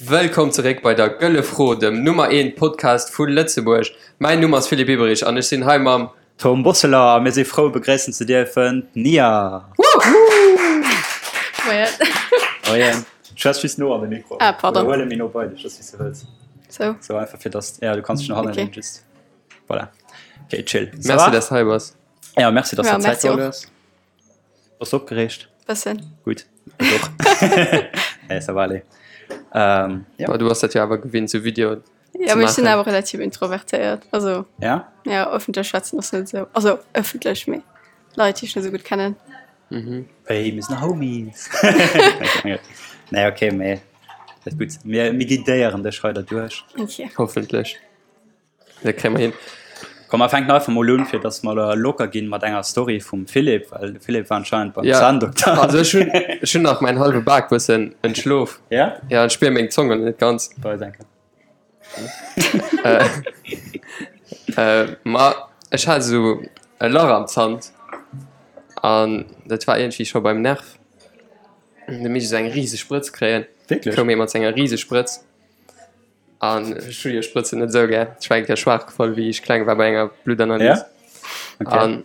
Wëllkomm zeréck bei der Gëlle Fro, dem Nummer 1 Podcast vu Lëtzebuerg. Mäin Numm ass Philippe Eberich an ech sinn hei mam. Tom Bosseler a mir si frou begréissen ze dierfen d'Nia. Moien. Moien. Schwätz just no an de Mikro. Ah, pardon. Oder huel e méi no bei dech, ass wéi s de wëlls. Sou. Sou einfach fir dass, ja du kanns dech no hannen Okay. leenen just. Voilà. Okay, chill. Ça Merci, va? dass hei bass. Ja, merci, dass Ja, du Zäit merci och. geholl hues. Bass du opgereegt? Bëssen. Gutt, ech och. Nee, ça va aller. Ähm, ja. Bah, du bass dat jo awer gewinnt, sou Videoen Ja, ze mee ech sinn maachen. awer relativ introvertéiert. Also, Ja? ja, ëffentlech schwätzen ass net esou, also ëffentlech, mee Leit, déi ech net esou gutt kennen. Hey, mir sinn Homies. Nee, okay, mee dat gutt. Mir, mir guidéieren dech hei derduerch. Okay. Hoffentlech. Dat kréie mer hin. Komm, mer fänken einfach mol un, fir dass mer elo locker ginn mat enger Story vum Philippe, well de Philippe war anscheinend beim Ja, Zahndokter. also ech hunn, ech hunn nach mäin hallwe Bak bëssen entschlof. Ja? Ja, ech spier meng Zong net ganz. Bei denken. Äh, ma ech hat esou e Lach am Zant an dat war iergendwéi scho beim Nerv. Du misst esou eng riseg Sprëtz kréien. Wierklech? Koum ee mat senger riseg Sprëtz. An ech hu jo Sprëtzen net esou gär. Ech war eng Kéier schwaach gefall, wéi ech kleng war bei enger Bluttanalys. Ja? Okay. An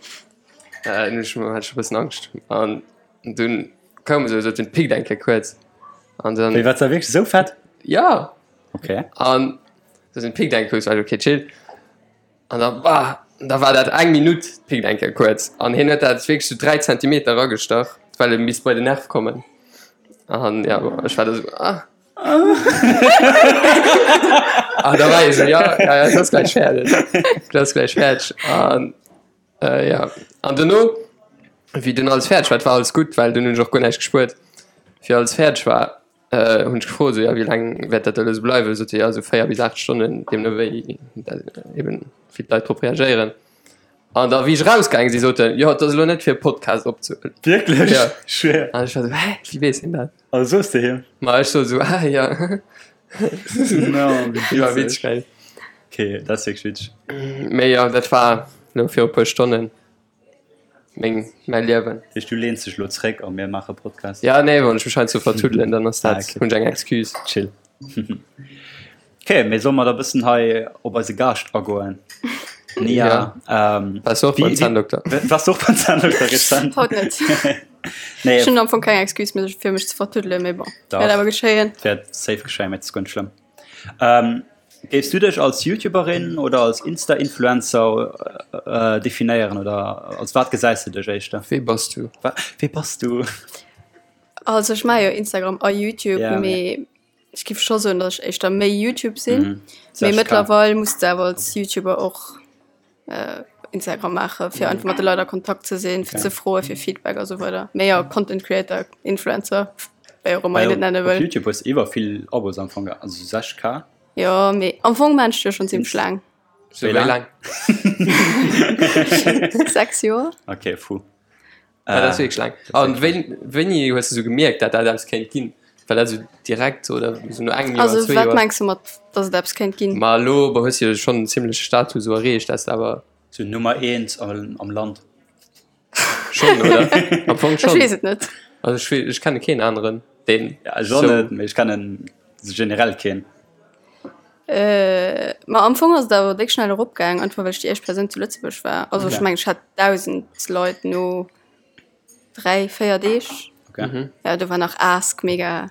äh, dunn ech hat ech e bëssen Angscht. An dunn koum esou, sot den pickt eng Kéier kuerz. An dann. Wéi, wat war wierklech esou fett? Ja! Okay. An sot den pickt eng kuerz, war ech okay, chill. An da bah, da war dat eng Minutt, pickt eng Kéier kuerz. An hien huet dat wierklech sou 3 Zentimeter eragestach, well e misst bei den Nerv kommen. An ja, bon, ech war da sou, ah. An da war ech sou, ja, ja, ja, dat ass gläich fäerdeg. Dat ass gläich fäerdeg. An äh, ja, an dono, wéi dunn alles fäerdeg war, et war alles gutt, well dunn hunn ech och guer näischt gespuert, wéi alles fäerdeg war, äh, hunn ech gefrot, sou, ja, wéi laang wäert dat elo sou bleiwen? Sot se, ja, sou 4 bis 8 Stonnen, deemno wéi dat eben, wéi d'Leit drop reagéieren. An da wéi ech rausgaange si sot en, jo, et ass elo net fir e Podcast opzehuelen. Wierklech? Ja. Schwéier. An ech war sou, hä, wéi weess hien dat? Also soos de him? Ma ech sot sou, ah ja. No, wéi War witzeg. witzeg geil. Okay, dat ass wierklech witzeg. Mee jo, dat war elo viru puer Stonnen meng, mäi Liewen. Dat heescht, du leens dech elo zréck a mir maache Podcast? Ja, nee, wann ech mech hei zu vertuddelen, dann ass Ah, dat, okay. hunn ech eng Excuse. Chill. Ok, mee solle mer da bëssen hei op eise Gaascht agoen? Nia, Ja. ähm, Waars du och beim wéi- Zänndokter? Waars du och beim Zänndokter rezent? Haut net. Nee, Ech hunn am Fong keng Excuse méi fir mech ze vertuddelen, mee bon, Dach. wäert awer geschéien. Wäert safe geschéien, mee et ass guer net schlëmm. Ähm, géifs du dech als YouTuberin oder als Insta-Influencer äh, definéieren oder als wat gesäis du dech éischter? Wee bass du? Wa wee bass du? Also ech maache jo Instagram a YouTube, Ja, mee Ech giff scho soen, datt ech éischter méi YouTube sinn, Mhm. mee 60K. mëttlerweil muss de awer als YouTuber och Instagram maache fir einfach mat de Leit a Kontakt ze sinn, fir Okay. ze froe fir Feedback a sou weider. Mee jo, Content Creator, Influencer, wéi och ëmmer Well een et nenne op wëll. YouTube hues de iwwer vill Abos am Fong, also 60K. Jo, mee am Fong maan ech jo schonn zimmlech laang. Sou Wéi wéi laang? laang? 6 Joer. Okay, fou. Ja, dat ass wierklech laang. An wéi, wéini hues du sou gemierkt, dat dat eppes kéint ginn? War dat sou direkt oder sou no engem Joer, Also zwee wat Joer? mengs du mat, datt et eppes kéint ginn? Ma elo bon, hues du jo schonn en zimmleche Status sou erreecht, dat s de awer. Sou Nummer eent am, am Land. Schonn, oder? Am Fong Ech schonn. weess et net. Also ech wee, ech kenne keen aneren, deen Ja, ech och sou. net, mee ech kennen generell keen. Ma am Fong ass et awer déck schnell eropgaang, einfach well ech déi éischt Persoun zu Lëtzebuerg war. Also ech Okay. mengen ech hat 1.000 Leit no 3, 4 Deeg. Okay. Mhm. Ja do war nach Ask mega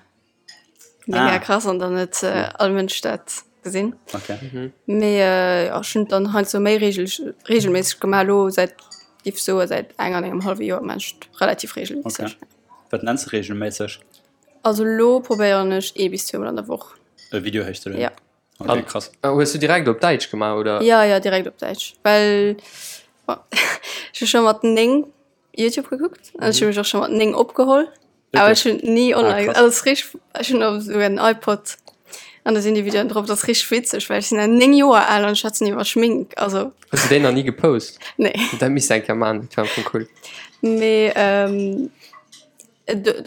mega Ah. krass an dann huet all Mënsch dat gesinn. Okay. Mhm. Mee jo ech hunn et dann heiansdo méi regel regelméisseg gemaach. Elo säit giff soe säit eng an engem hallwe Joer maan ech et relativ regelméisseg. Okay. Wat nenns de regelméisseg? Also lo probéieren ech ee bis zweemol an der Woch. E Video héichzelueden? Ja. Okay, krass. An hues du direkt op Däitsch gemaach, oder? Ja, ja, direkt op Däitsch, well bon, ech hu scho mat 9 Youtube gekuckt an ech hu mech och scho mat 9 opgeholl, awer ech hunn ni online, krass. also et ass richteg, ech hunn och esouguer en iPod an do sinn déi Videoen drop, dat ass richteg witzeg, well ech sinn nach 9 Joer al an ech schwätzen iwwer Schmink, also. Hues du déi nach ni gepost? Nee. Dat misst de eng Kéier maachen, dat wär am Fong cool. Mee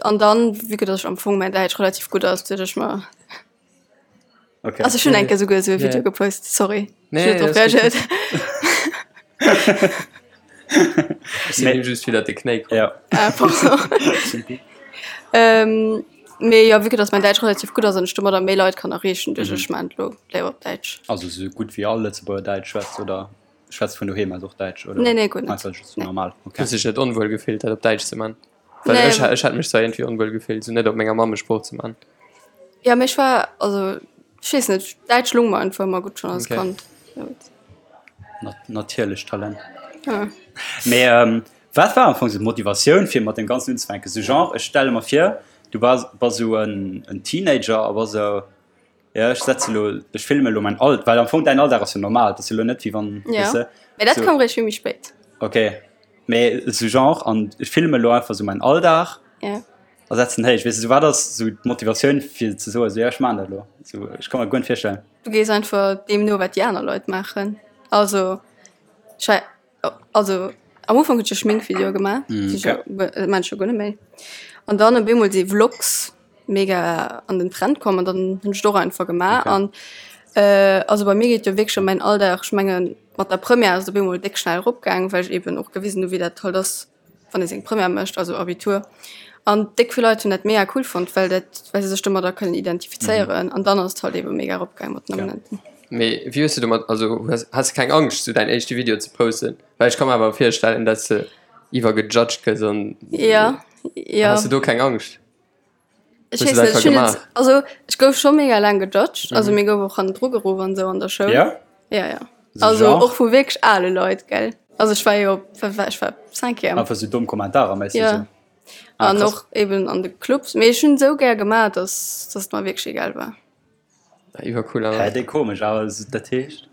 An dann, vue que dass ech am Fong mäin Däitsch relativ gutt ass, duecht ech mer, Okay. also ech hunn eng Kéier souguer esou e Video Yeah. gepost, sorry, Nee, ech hunn net drop alles gutt. reagéiert. Ech sinn him just widder de Knéi komm. Ja. Ah, pardon. Simpi. Mee jo, vue que dass mäin Däitsch relativ gutt ass an ech domadder méi Leit kann erreechen, duecht ech, ech maachen et elo léiwer op Däitsch. Also sou gutt wéi all Lëtzebuerger Däitsch schwätzt oder schwätzt vun doheem aus och Däitsch oder? Nee, nee, guer net. Einfach just normal, okay. Hues dech net onwuel gefillt dat op Däitsch ze man? Well Nee. ech ech hätt mech zwar iergendwéi onwuel gefillt sou net op menger Mammesprooch ze man. Ja, mee ech war, also ech weess net, Däitsch lung mer einfach ëmmer gutt schonn als Okay. Kand. Natierlecht Talent. Ja. Mee wat war am Fong sou d'Motivatioun fir mat deem Ganzen unzefänken? Sou genre, ech stelle mer vir, du bass bass sou en en Teenager a bass sou, jo ech setze lo, ech filme lo mäin All, well am Fong däin Alldag ass jo normal, et ass jo lo net wéi wann, Ja, weess de, mee dat sou. koum réischt vill méi spéit. Ok, mee sou genre an ech filme lo einfach sou mäin Alldag Ja. a setzen héich, weess de, sou wat ass sou d'Motivatioun fir ze soen, sou jo ech maachen dat lo, sou ech ka mer guer net virstellen. Du gees einfach deem no wat déi aner Leit maachen, also ech war Also am Ufank hunn ech jo Schminkvideoe gemaach, mm, okay. dat maan ech jo guer net méi. An dann op eemol si Vlogs mega an den Trend komm an dann hunn ech et och einfach gemaach. Okay. An äh, also bei mir geet jo wierklech ëm mäin Alldag. Ech mengen mat der Première ass et op eemol déck schnell eropgaang, well ech eben och gewisen hu wéi dat halt ass, wann ee seng Première mécht, also Abitur. An déck vill Leit hunn dat mega cool fonnt, well dat, well se sech domadder kënnen identifizéieren. An dann ass et halt ebe mega eropgaang mat den Abonnenten. Mee wéi hues de domat, also hues, has de keng Angscht sou däin éischte Video ze posten? Well ech ka mer awer virstellen, dass de iwwergejudged gëss an Ja, ja. Has de do keng Angscht? Ech Hues weess de net, dat ech hunn et, gemaach? also ech gouf scho mega laang gejudged, also mir gouf och hannendru geruff an esou an der Schoul. Ja? Ja, ja. So Also genre? och vu wierklech ale Leit, gell. Also ech war jo, wat war ech war Cinquième. Einfach sou domm Kommentarer méisseg Ja. sou. Ah, An krass. och eben an de Clubs. Mee ech hunn esou gär gemaach, dass, dass et mer wierklech egal war. Iwwercool Hä, awer. déi komesch, awer dat heescht,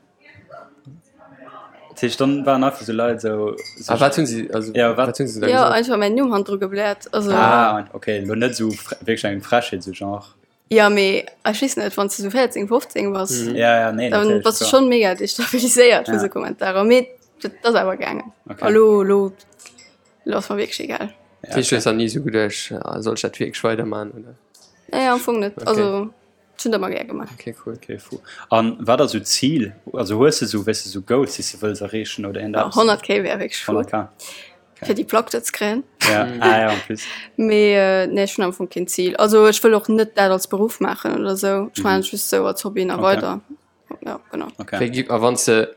dat heescht dann waren einfach sou Leit sou, sou A wat hunn si, also Ja, wat- wat hunn se da Ja, gesot? einfach mäin Numm hannendru gebläert. Also, Ah, okay, lo net sou fre wierklech eng Frechheet, sou genre. ja, mee ech weess net, wann s de sou 14, 15 bass, Mhm. Ja, ja, nee, dann natierlech, bass du klar. schonn mega destabiliséiert vu Ja. sou Kommentarer. Mee dat ass awer gaangen. Okay. A lo, lo, lo ass mer wierklech egal. Dat heescht, du hues der ni sou geduecht, ah, soll ech dat wierklech weiderman oder? Nee, am Fong net. Okay. Also, Ech hunn dat ëmmer gär gemaach. Okay, cool. Okay, fou. An wat ass sou d'Zil? Also hues de sou, weess de, sou Goals, déi s de wëlls erreechen oder iergend eppes? 100K wär wierklech cool. 100K. Fir déi Plack do ze kréien. Ja, ah ja, en plus. Mee nee, ech hunn am Fong keen Zil. Also ech wëll och net dat als Beruff maachen oder sou. Ech maachen et just sou als Hobby nach Okay. weider. Ja, genau. Okay. Wéi gi, a wann s de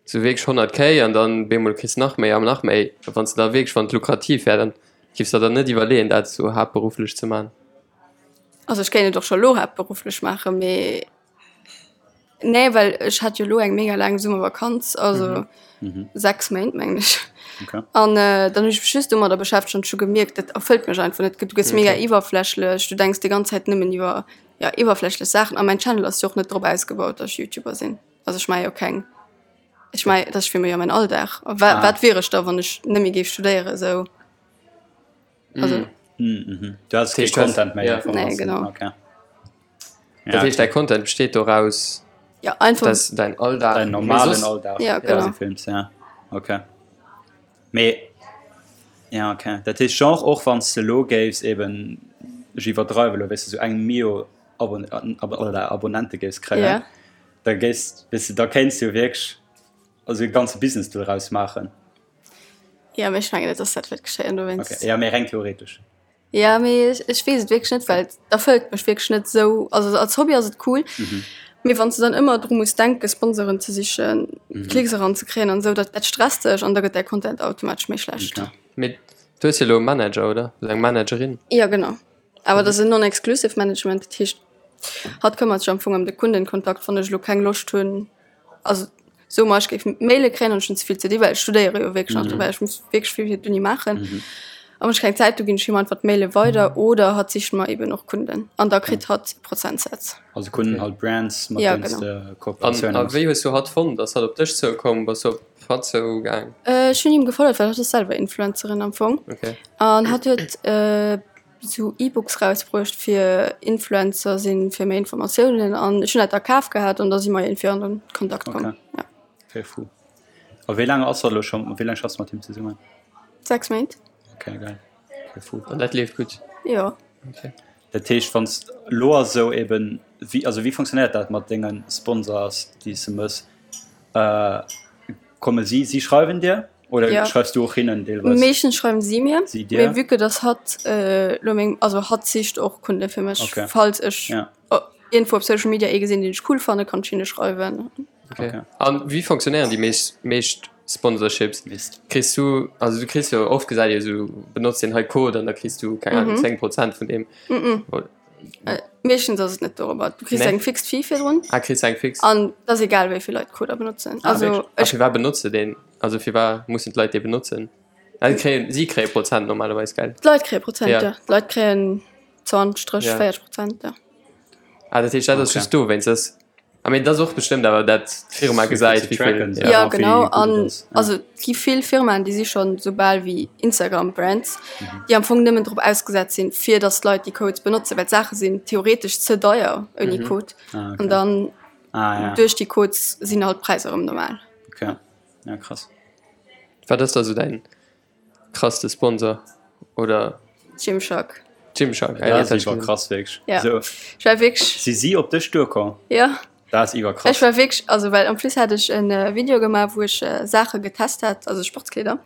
sou wierklech 100 K an dann bemol kriss nach méi an nach méi, wann s de da wierklech, wann et lukrativ wär, dann giffs der dann net iwwerleeën dat sou haaptberufflech ze man? Also ech kéint et och scho lo haaptberufflech maachen, mee nee, well ech hat jo lo eng mega laang Summervakanz, also 6 Méint mengen ech. Okay. An dann hunn ech mech just domadder beschäftegt an ech hu gemierkt, dat erfëllt mech einfach net. Du gëss mega iwwerflächlech, du denks déi ganz Zäit nëmmen iwwer ja iwwerflächlech Saachen a mäin Channel ass jo och net drop ausgebaut, datt ech Youtuber sinn. Also ech maache jo keng, ech maache, dat ass fir mech jo mäin Alldag. A wa, wat wier ech da, wann ech net méi géif studéieren esou? Also. Mhm. Du has kee Content méi. Ja. Nee, genau. Okay. Dat heescht, däi Content besteet doraus, Ja, einfach. dass däin Alldag. Däin normalen Alldag. Ja, genau. Films, ja. Okay. Mee, ja, okay. Dat heescht, genre och wann s de elo géifs eben, ech iwwerdreiwe elo, weess de, sou eng Mio Abon oder Abonnente géifs kréien, Ja. da géifs, weess de, da kéints de jo wierklech also e ganze Business doraus maachen. Ja, mee ech mengen net, dass dat wäert geschéien dowéinst. Okay, ja, mee reng theoretesch. Ja, mee ech, ech weess et wierklech net, well et erfëllt mech wierklech net esou. Also als Hobby ass et cool, mee wann s de dann ëmmer dru muss denken, Sponsoren ze sichen, Klicks eranzekréien an esou, dat, dat stresst dech an da gëtt däi Content automatesch méi schlecht. Okay. Mee du hues jo elo e Manager, oder? Oder eng Managerin? Ja, genau. Awer dat ass en non-exclusive Management, dat heescht, hatt këmmert sech am Fong ëm de Kundenkontakt, wann ech elo keng Loscht hunn, also soe mer, ech géif Maile kréien an ech hunn ze vill ze di, well ech studéiere jo wierklech nach dobäi, ech muss wierklech vill fir d'Uni maachen. A wann ech keng Zäit hu ginn ech him einfach d'Maile weider oder hatt sicht mer eben och Kunden an da kritt hatt e Prozentsaz. Also Kunden halt Brands, mat Ja, deenen s genau. de An Kooperatioune a méchs. wéi hues du hatt fonnt? Ass hatt op dech zoukomm? Bass du op hatt zougaang? Ech hunn him gefollegt, well hatt ass selwer Influencerin am Fong. Okay. An hatt huet sou E-Books rausbruecht fir Influencer sinn, fir méi Informatiounen an ech hunn dat da kaf gehat an da si mer iergendwéi an den Kontakt komm. Okay. Ja. Okay, fou. A wéi laang ass hatt elo scho, wéi laang schaffs du mat him zesummen? 6 Méint. Okay, geil. Okay, fou. An dat leeft gutt? Jo. Okay. Dat heescht, wann s elo ass esou eben, wéi, also wéi funktionéiert dat mat denge Sponsors, déi s de mëss? Komme si, si schreiwen dir? Oder ja. schreifs du och hinnen deelweis? Meeschtens schreiwen si mir. Si dir? Mee vue que dass hatt äh, lo meng, also hatt sicht och Kunde fir mech. Okay. Falls ech ja. iergendwou op Social Media ee gesinn, deen ech cool fannen, kann ech hinne schreiwen. Okay. okay. An wéi funktionéieren déi meescht, meescht Sponsorships? Mist. Kriss du, also du kriss jo oft gesäit ee sou, benotz deen hei Code an da kriss du, keng Ahnung, mhm. 10 Prozent vun deem. Mhm. Äh, meeschtens ass et net dorobber. Du kriss nee. eng fix Fee virdrun. Ah, kriss eng fix. An dat ass egal, wéi vill Leit Coder benotzen. Ah, also, ech... Fir wat benotze den? Also fir wat mussen d'Leit dee benotzen? Also, kréien, si kréie Prozent normalerweis, gell? D'Leit kréie Prozent, ja. ja. D'Leit kréien 20, 30, ja. 40 Prozent, ja. Ah, dat heescht, dat ass okay. just dowéinst. Das I mean, dat ass och bestëmmt awer dat d'Firma gesäit, wéi vill. Ja, ja genau. An also et gi vill Firmaen, déi si schonn esou bal wéi Instagram-Brands, mhm. déi am Fong nëmmen drop ausgesat sinn, fir datt d'Leit déi Codes benotzen, well d'Saache sinn theoretesch ze deier ouni mhm. Code. Ah, okay. An dann ah, ja. duerch déi Codes sinn halt d'Präisser erëm normal. Okay. Ja, krass. Wat ass da sou däin Krasste Sponsor oder? Gymshark. Gymshark, ah, dat ass iwwer krass wierklech. Ja. So. Ech war wierklech. Si si op dech duerkomm? Ja. Dat ass iwwer krass. Ech war wierklech, also well en plus hat ech en Video gemaach, wou ech Saache getest hat, also Sportskleeder.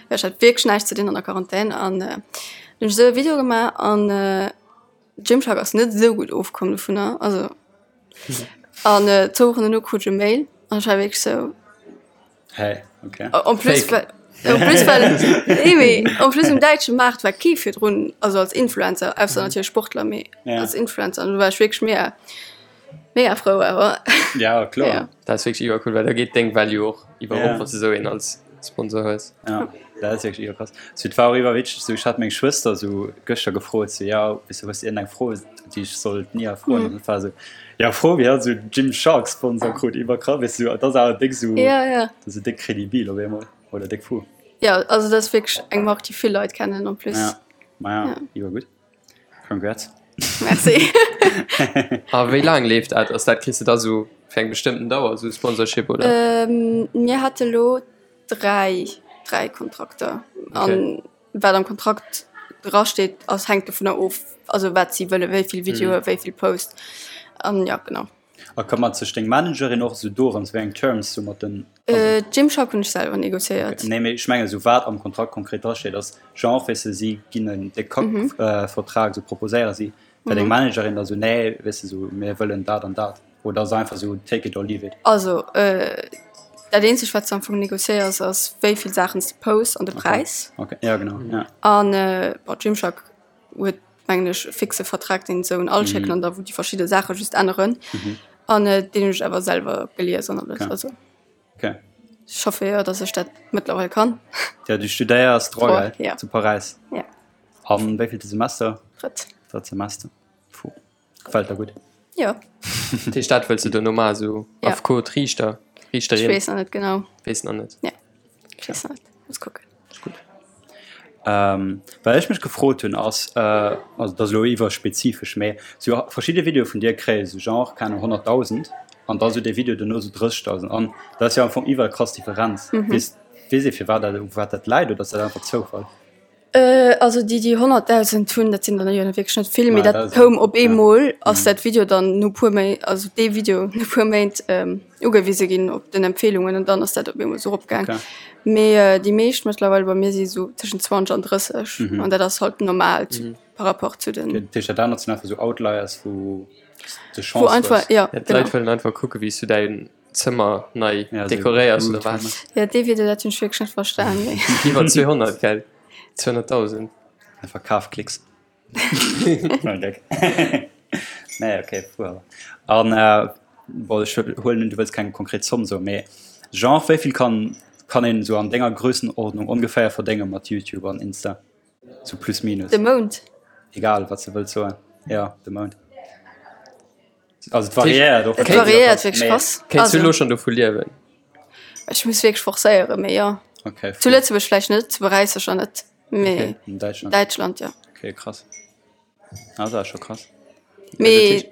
Ja, ech hat wierklech näischt ze dinn an der Quarantän an hunn ech esou e Video gemaach an Gymshark ass net esou gutt ofkomm dovunner, also an zwou Wochen dono krut ech e Mail an ech war wierklech esou. Hey, okay. En plus, well, en plus, well, nee, mee, en plus um däitsche Maart war kee virdrun, also als Influencer, ausser natierlech Sportler, mee Ja. als Influencer, an do war ech wierklech mega, mega frou awer. Ja, kloer. Ja. Dat ass wierklech iwwercool, well da geet deng Value och iwwer Ja. op, wann s de esou een als Sponsor hues. Ja, dat ass wierklech iwwerkrass. So, et war och iwwerwitzeg, so, ech hat meng Schwëster so gëschter gefrot, so, ja, weess du, hues du iergendeng Fro, déi ech soll d'Nia froen? An dat war so, Ja frou wéi hatt esou Gymshark Sponsor krut iwwer krass weess du dat ass awer déck esou Ja, ja. dat ass déck kredibil op eemol oder déck fou. Ja, also dat ass wierklech eng Mark déi vill Leit kennen en plus. Ja ma ja iwwer gutt congrats. Merci. A wéi laang leeft dat? Ass dat kriss de da sou fir eng bestëmmten Dauer sou Sponsorship oder? Mir hate lo 3, 3 Kontrakter an Wat am Kontrakt dra steet, ass hänkt dovunner of, also wat si wëlle, wéi vill Videoe, wéi vill Post an ja genau. A këmmert sech deng Managerin och esou dorëms, wéi eng Terms du mat den. Gymshark hunn ech selwer negociéiert. Nee, mee ech mengen esou wat am Kontrakt konkret dra steet ass genre, weess de, si ginn en déck Kack-Vertrag, esou proposéiere si, well deng Managerin da sou, nee, weess de, esou mir wëllen dat an dat. Oder ass einfach sou take it or leave it? Also dat eenzegt wat s de am Fong negociéiers ass wéi vill Saachen s de posts an de Präis. Okay, ja genau ja. An bon Gymshark huet mengen ech e fixe Vertrag deen se un all schécken an da wou déi verschidde Saache just änneren an deen hunn ech awer selwer gelies an alles. Also Okay. ech hoffe jo datt ech dat mëttlerweil kann. Ja du studéiers Droit, Droit, gell? ja. Zu Paräis. Ja. Am wéivillte Semester? Drëtt. Drëtt Semester. Puh. Gefällt der gutt? Jo. Dat heescht, dat wëlls de duerno maachen, esou Ja. Affekot, Riichter, Riichterin? Ech weess nach net genau. Weess nach net. Ja, ech weess nach net. Muss kucken. Ass gutt. Ähm, wat ech mech gefrot hunn ass, äh, also dat ass elo iwwerspezifesch, mä sou verschidde Videoe vun dir kréie sou genre, keng Ahnung, 100.000 an da sou dee Video duerno sou 30.000 an dat ass jo am Fong iwwer krass Differenz. Weess, weess ee firwat dat, u wat dat läit oder ass dat einfach Zoufall? Also déi déi 100.000 hunn, dat sinn der jo wierklech net vill, mee dat koum op eemol, ass dat Video dann no puer Méint, also dee Video no puer Méint ugewise ginn op den Empfeelungen an dann ass dat op eemol esou eropgaang. Mee déi meescht mëttlerweil bei mir si sou tëschent 20 an 30 an dat ass halt normal par rapport zu den. Dat heescht dat anert sinn einfach sou Outliers wou de Wou Chance einfach, hues. jo, D'Leit wëllen einfach kucke wéi s du däin Zëmmer nei dekoréiers oder wat? Ja dee Video dat hunn ech wierklech net verstan mee. Iwwer 200 gell? 200.000. Einfach Kafklicks. Nein, Gag. Nee, okay, fu awer. An äh, bon, ech huelen un, du wëlls keng konkret Zomm soen, mee genre wéi vill kann, kann een esou an denger Grössenordnung ongeféier verdénge mat YouTube an Insta? Sou plus minus. De Mount? Egal, wat s de wëlls soen. Ja, de Mount. Also et variéiert och. Et variéiert wierklech krass. Kéints du elo schonn dovu liewen? Ech muss wierklech forcéieren, mee jo. Okay. Zu Lëtzebuerg vläicht net, zu Paräis sécher net, mee Okay, an Däitschland. Däitschland, jo. Okay, krass. Ah, dat ass scho krass. Mee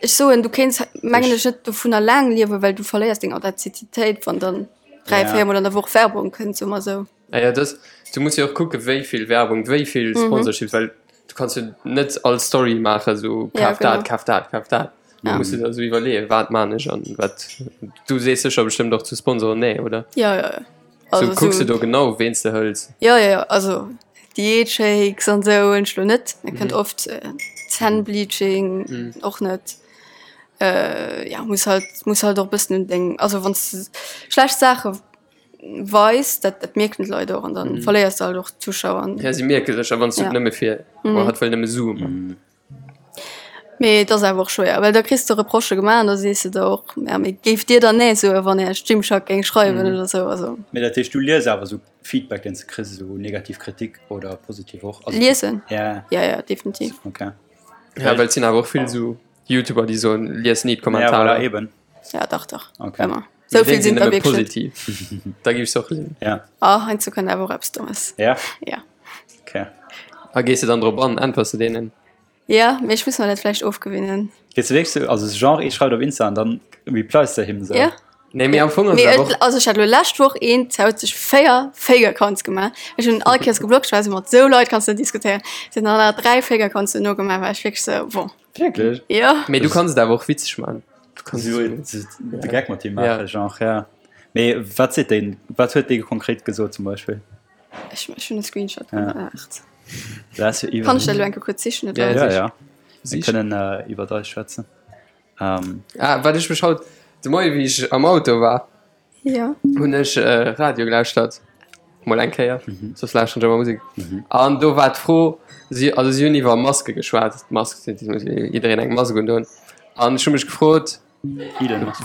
ech soen, du kéints mengen ech net dovunner laang liewen, well du verléiers deng Authentizitéit, wann dann 3, 4 mol an der Woch Werbung kënnt, soe mer esou. Ah ja, das, du muss jo och kucke wéi vill Werbung, wéi vill Sponsorships, well du kanns jo net all Story maachen, sou Ja, kaf dat, genau. kaf dat, kaf dat. Du Ja. muss dir da sou iwwerleeën, wat maan ech an wat. Du sees sécher bestëmmt och zu Sponsoren nee, oder? Ja, ja, ja. Also so, kucks du do genau ween s de hëls? Jo, jo, jo, also Diätshakes an esou hunn ech lo net. Dat kënnt oft Zännbleaching och net. Ja muss halt muss halt och e bëssen un deng, also wann s de schlecht Saache weis, dat dat mierken d'Leit och an dann verléiers de halt och Zuschauer. Ja si mierke sech a wann s du et nëmme fir, oh hatt wëll nëmme Sue man. Mee et ass awer och schwéier, well da kriss de Reprochë gemaach an da sees de der och, ja mee géift Dir dann nee soen, wann Iech Gymshark géing schreiwen oder esou, also. Mee dat heescht, du lies awer esou Feedback, deen s de kriss, esou negativ Kritik oder positiv och? Also, Liesen? Ja. Ja, ja, definitiv. Okay. Ja, well et sinn awer och vill esou Youtuber, déi soen, lies ni d'Kommentarer. Ja, voilà, eben. Ja, dach, dach. Okay. Ëmmer. Sou vill sinn der wierklech. Positiv. Da gi ech och liesen. Ja. Ah, heiansdo kënnt awer och eppes Dommes. Ja? Ja. Okay. A gees de dann drop an? Äntwers de deenen? Ja, mee ech muss mer dat vläicht ofgewinnen. Gees de wierklech sou, also genre ee schreift op Insta an dann replies de him sou? Ja. Nee, mee am Fong ass Mee et awer et, och. also ech hat lo lescht Woch een, ze huet sech 4 Fake Accounts gemaach. Ech hunn all Kéiers geblockt, ech war sou, mat sou Leit kanns de net diskutéieren. Se hunn dann nach 3 Fake Accounts duerno gemaach, war ech wierklech sou, bon. Wierklech? Jo. Mee du kanns et awer och witzeg man. Du kanns So, de Gag mat him maachen, genre, ja. Mee wat seet deen, wat huet dee konkret gesot zum Beispill? Ech, ech hunn e Screenshot gemaach. Dat ass jo iwwer. Kann ech dat elo eng Kéier kuerz sichen, oder? Ja, ja. Mir kënnen iwwer eis schwätzen. Ah, wat ech mech haut de Moie wéi ech am Auto war, Ja. hunn ech Radio gelauschtert, mol eng Kéier, soss lauschteren ech ëmmer Musek. An do war d'Fro, si, also si hunn iwwer Maske geschwat, d'Mask, et muss jiddereen eng Mask undoen. An ech hu mech gefrot,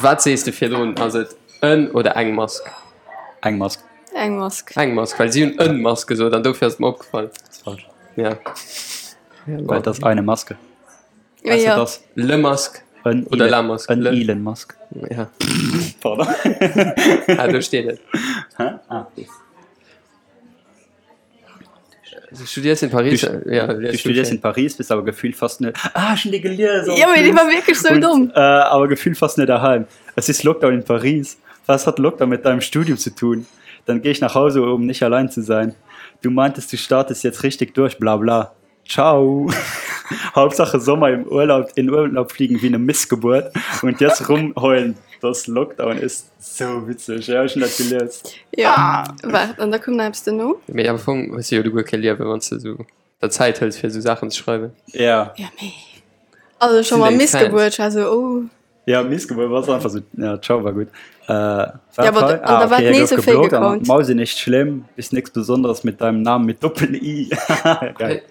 wat sees de virdrun, ass et en oder eng Mask? Eng Mask. Eng Mask. Eng Mask, well si hunn en Mask gesot an dofir ass et mer opgefall. Dat ass falsch. Ja. Well et ass eine Maske. Ja, Weißt du, ja. das Le Masque en oder Elon, La Masque. en Le. Elon Musk. Ja. Pardon. Ah, do steet et. Hä? Ah. Du studierst in Paris. Du, ja, du studierst in Paris, bist aber gefühlt fast net. Ah, schon die gelesen. Ja, aber die war wirklich so Und, dumm. Äh, aber gefühlt fast nicht daheim. Es ist Lockdown in Paris. Was hat Lockdown mit deinem Studium zu tun? Dann gehe ich nach Hause, um nicht allein zu sein. Du meintest, du startest jetzt richtig durch, bla bla. Ciao. Hauptsache Sommer im Urlaub, in Urlaub fliegen wie eine Missgeburt und jetzt rumheulen, dass Lockdown ist. So witzig. Ja, ich schon dat gelies. Ja, waart, an da koum nach eppes duerno. Mee am Fong hues de jo du guer kee Liewen, wann s de sou der Zäit hëls fir sou Saachen ze schreiwen. Ja. Ja, mee also scho Sinn mal deng Missgebuert, ech war sou, oh. Ja, Missgeburt war einfach so, ja, ciao war gut. Äh, Ja, aber hei? an da war okay, nees gouf e Fake geblockt an Account. Mausi nicht schlimm, bist nix Besonderes mit deinem Namen mit Doppel-I. Geil.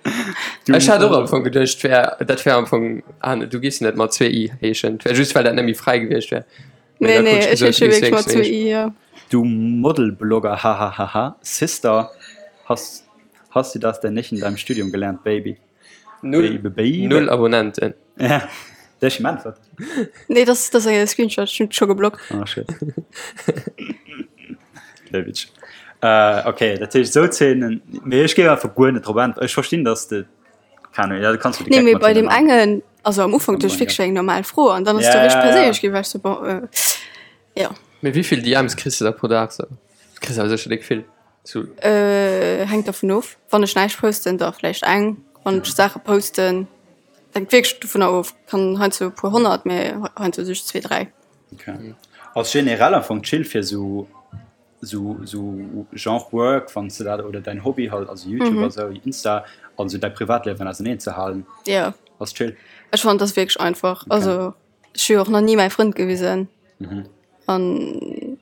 Du, Ech hat och am Fong geduecht, wär, dat wär am Fong, ah, du giffs net mat zwee I heeschen, wär just well dat net méi fräi gewiescht wär. Nee, nee, ech heesche wierklech mat zwee I, ja. Du Modelblogger, hahahaha. Sister, hast, hast du das denn nicht in deinem Studium gelernt, Baby? Null, Baby, Baby. null Abonnenten. Ja, der ist geantwortet. Nee, das, das ass e Screenshot, ech hunn scho geblockt. Ah, shit. Der Witsch. Äh, okay, dat heescht sou Zeenen, mee ech géif einfach guer net drop äntweren. Ech verstinn, dass de, keine Ahnung, ja, du kanns jo de Nee, Geck mee mat bei hinne deem maachen. engen, also am Ufank duecht ech wierklech, wär eng normal Fro an dann ass Ja, du richteg ja, ja. perséinlech ginn, war ech sou, bon, äh, ja. Mee wéivill DMs kriss de da pro Dag sou? Du kriss awer sécher déck vill. Sou. Äh, hänkt dervun of. Wann ech näischt posten, da vläicht eng. Wann ech Saache posten, hänkt wierklech dovunner of. Kann heiansdo e puer honnert, mee heiansdo just zwee, dräi. Okay. Ass generell am Fong chill fir sou sou sou Genre Work, wann s de dat oder däin Hobby halt, also YouTube a sou, Insta an sou däi Privatliewen auseneen ze halen. Jo. Ass chill. Ech fannen, dat ass wierklech einfach. Also ech hu jo och nach ni mäi Frënd gewisen. An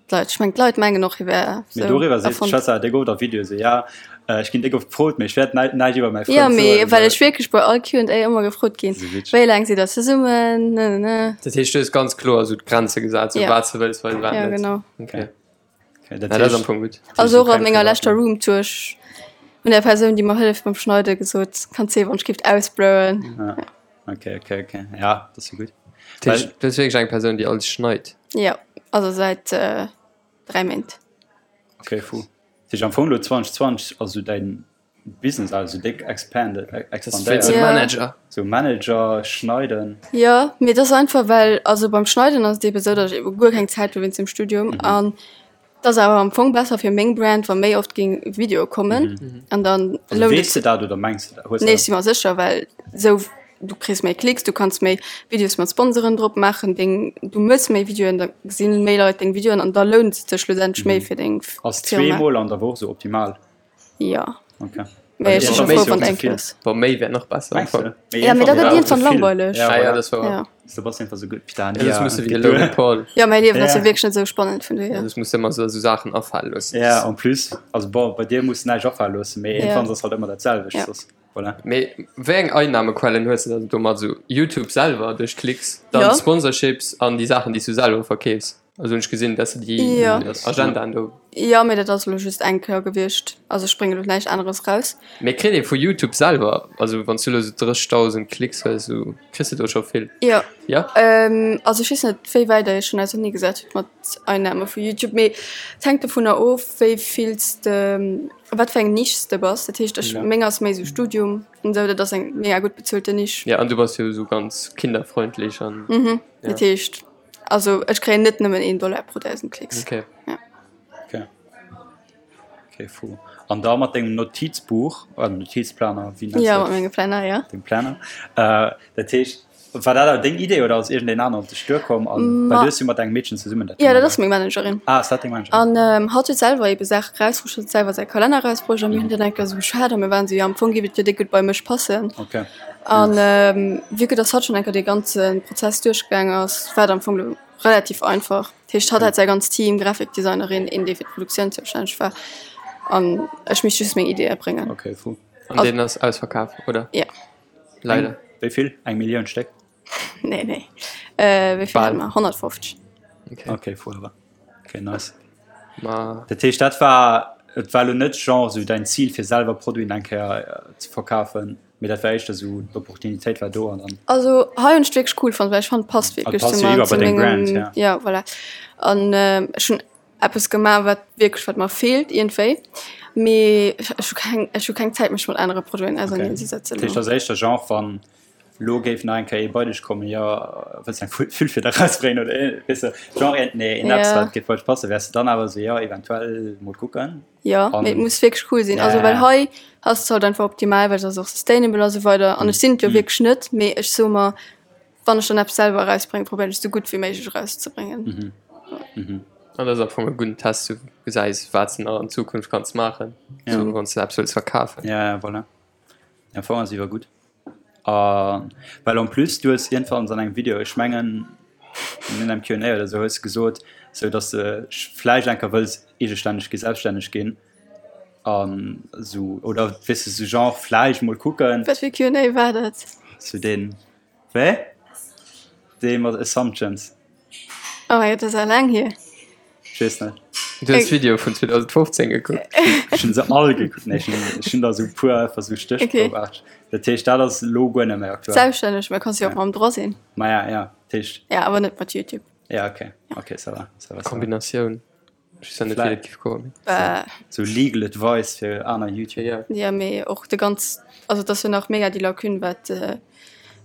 d'Leit, ech mengen d'Leit mengen och hie wär Mee sou doriwwer seet erfonnt. d'Schwester déck oft a Videoe sou, ja ech ginn déck oft gefrot, mee ech wäert näi näischt iwwer mäi Jo, Frënd mee soen. well ech wierklech bei all Q&A ëmmer gefrot ginn, Sou witzeg. wéi laang sidd der zesummen, ne ne ne. Dat heescht, du hues ganz kloer sou d'Grenze gesat, sou Ja. wat s de wëlls weisen, wat Ja, net. genau. Okay. Okay, dat Ja, dat ass am heescht, Fong gutt. Also och keng an menger leschter Privatliewen. Roomtour, ech hunn der Persoun, déi mer hëlleft beim Schneiden, gesot, kanns sinn, wann ech géif ausblurren. Ja. Okay, okay, okay. Ja, dat ass jo gutt. Dat heescht, du hues wierklech eng Persoun, déi alles schneit? Jo, also säit 3 Méint. Okay, fou. Dat heescht am Fong elo 2020 ass esou däin Business also déck expanded, expandéiert. Wéinst dem Manager. Sou Manager, Schneiden. Jo, mee et ass einfach well, also beim Schneiden ass et eebe sou, datt ech eebe guer keng Zäit hu wéinst dem Studium an et ass awer am Fong besser fir meng Brand, wa méi oft géing Videoe kommen an dann Also lount et weess de dat oder mengs de dat? Hues Nee, de ech si mer sécher, well sou. du kriss méi Klicks, du kanns méi Videos mat Sponsoren drop maachen, deng, du mëss méi Videoen, da gesinn méi Leit deng Videoen an da lount et sech schlussendlech méi fir deng Firma. Ass zweemol an der Woch sou optimal? Jo. Okay. Mee ech si scho frou, wann eng Kéier ass. Bon, méi wär nach besser. Mengs du? Ja, mee da gëtt iergendwann langweileg. Ja, ja, dat ass wouer. Ja. Du bass einfach sou gutt. Putain, Ja, soss muss de wéi de Logan Paul. Ja, mäi Liewen ass jo wierklech net sou spannend, vun dohier. Ja, soss muss de ëmmer sou Saachen afale loossen. Ja, en plus, also bon, bei dir muss näischt afale loossen, mee iergendwann ass halt ëmmer dat selwecht. Ja. Soss, voilà. Mee wéi eng Einnahmequellen hues de dann domat? Sou YouTube selwer duerch Klicks, dann Ja. Sponsorships an déi Saachen, déi s du selwer verkeefs? Also hunn ech gesinn, dass de déi Ja. Agendaen do. Jo, mee dat ass elo just eng Kéier gewiescht. Also ech bréngen elo näischt aneres raus. Mee kritt ee vu YouTube selwer, also wann s du elo sou 30.000 Klicks hues, sou kriss de do scho vill? Jo. Jo? Also ech weess net, wéi wäit der iech schonn ausernee gesat hutt mat Einnahme vu YouTube, mee et hänkt dovunner of, wéi vill s de, wat fir eng Nisch s de bass. Dat heescht, ech, meng ass méi sou Studium an esou, dat ass eng mega gutt bezuelte Nisch. Ja, an du bass jo sou ganz kinderfreundlich an. Mhm. Dat heescht. Also ech kréien net nëmmen een Dollar pro 1000 Klicks. Okay. Ja. Okay. Okay, fou. An da mat dengem Notizbuch, oder Notizplaner, wéi nenns Ja, du mat mengem Planner, ja. Dengem Planner. Äh, dat heescht, war dat awer deng Idee oder ass iergendeen aneren op dech duerkomm? An, well du hues jo mat engem Meedchen zesummen dat Ja, dat gemaach. ass meng Managerin. Ah, ass dat deng Managerin? An ähm, hatt huet selwer ebe Saache rausbruecht, huet selwer säi Kalenner rausbruecht a mir hunn dann eng Kéier esou geschwat a mir waren esou, jo am Fong géif et jo déck gutt bei mech passen. Okay. An vue que dass hatt schonn eng Kéier dee ganze Prozess duerchgaang ass, war et am Fong elo relativ einfach. Dat heescht, hatt hat säi ganzt Team, Grafikdesignerin, een, dee fir d'Produktioun zoustänneg war, an ech misst just meng Ideeë bréngen. Okay, fou. An deen ass ausverkaf, oder? Jo. Leider. Wéi vill? Eng Millioun Stéck? Nee, nee. Wéi vill hate mer? 150. Okay. Okay, fou awer. Okay, nice. Ma. Dat heescht, dat war, et war elo net genre sou däin Zil, fir selwer Produiten eng Kéier ze verkafen? Mee dat war éischter esou, d'Opportunitéit war do an dann. Also hei hunn ech wierklech cool fonnt, well ech fannen et passt wierklech passt zu jo mer, iwwer zu bei deng Brand, mengem, ja. ja voilà. An ech hunn eppes gemaach wat wierklech wat mer feelt iergendwéi, mee ech hu keng, ech hu keng Zäit mech mat anere Produiten auserneen ze setzen Dat heescht, elo. ass éischter Genre wann lo géif nach eng Kéier ee bei dech kommen, jo wëlls eng Füllfieder erausbréngen oder ee, weess de, Genre een, nee, een eppes Ja. wat géif bei dech passen, wäers de dann awer esou, jo eventuell mol kucken? Jo, mee et muss wierklech cool sinn. Also well hei ass et halt einfach optimal, well et ass och sustainable a sou weider. An ech sinn et jo wierklech net, mee ech soe mer, wann ech dann eppes selwer erausbréngen, probéieren ech esou gutt wéi méiglech erauszebréngen. An dat ass am Fong e gudden Test, du gesäis wat s de nach an Zukunft kanns maachen, sou wann s de eppes wëlls verkafen. Ja, ja, voilà. Am Fong ass iwwer gutt. A well en plus du hues iergendwanns an engem Video, ech mengen an engem Q&A oder sou, hues de gesot, sou datt de vläicht eng Kéier wëlls eegestänneg ginn, selbststänneg ginn an sou oder weess de sou genre vläicht mol kucken. Wat fir e Q&A war dat? Sou deen, wéi? Dee mat Assumptions. Oh mein Gott, dat ass awer laang hier. Ech weess net. Du hues d'Video vun 2015 gekuckt? Ech hunn se all gekuckt. Nee, ech hunn, ech hunn der esou e puer einfach esou stéchprobearteg. Dat heescht, dat ass elo guer net méi aktuell. Selbststänneg, mä kanns jo och mam Droit sinn. Maja, ja, dat heescht. Ja, awer net mat YouTube. Ja, okay. Okay, ça va, ça va, ça va. Kombinatioun. Ech weess net, wéi dat géif goen. Sou legal advice fir aner YouTuber. Ja, mee och de ganz, also et ass jo nach mega déi Lacune, wat,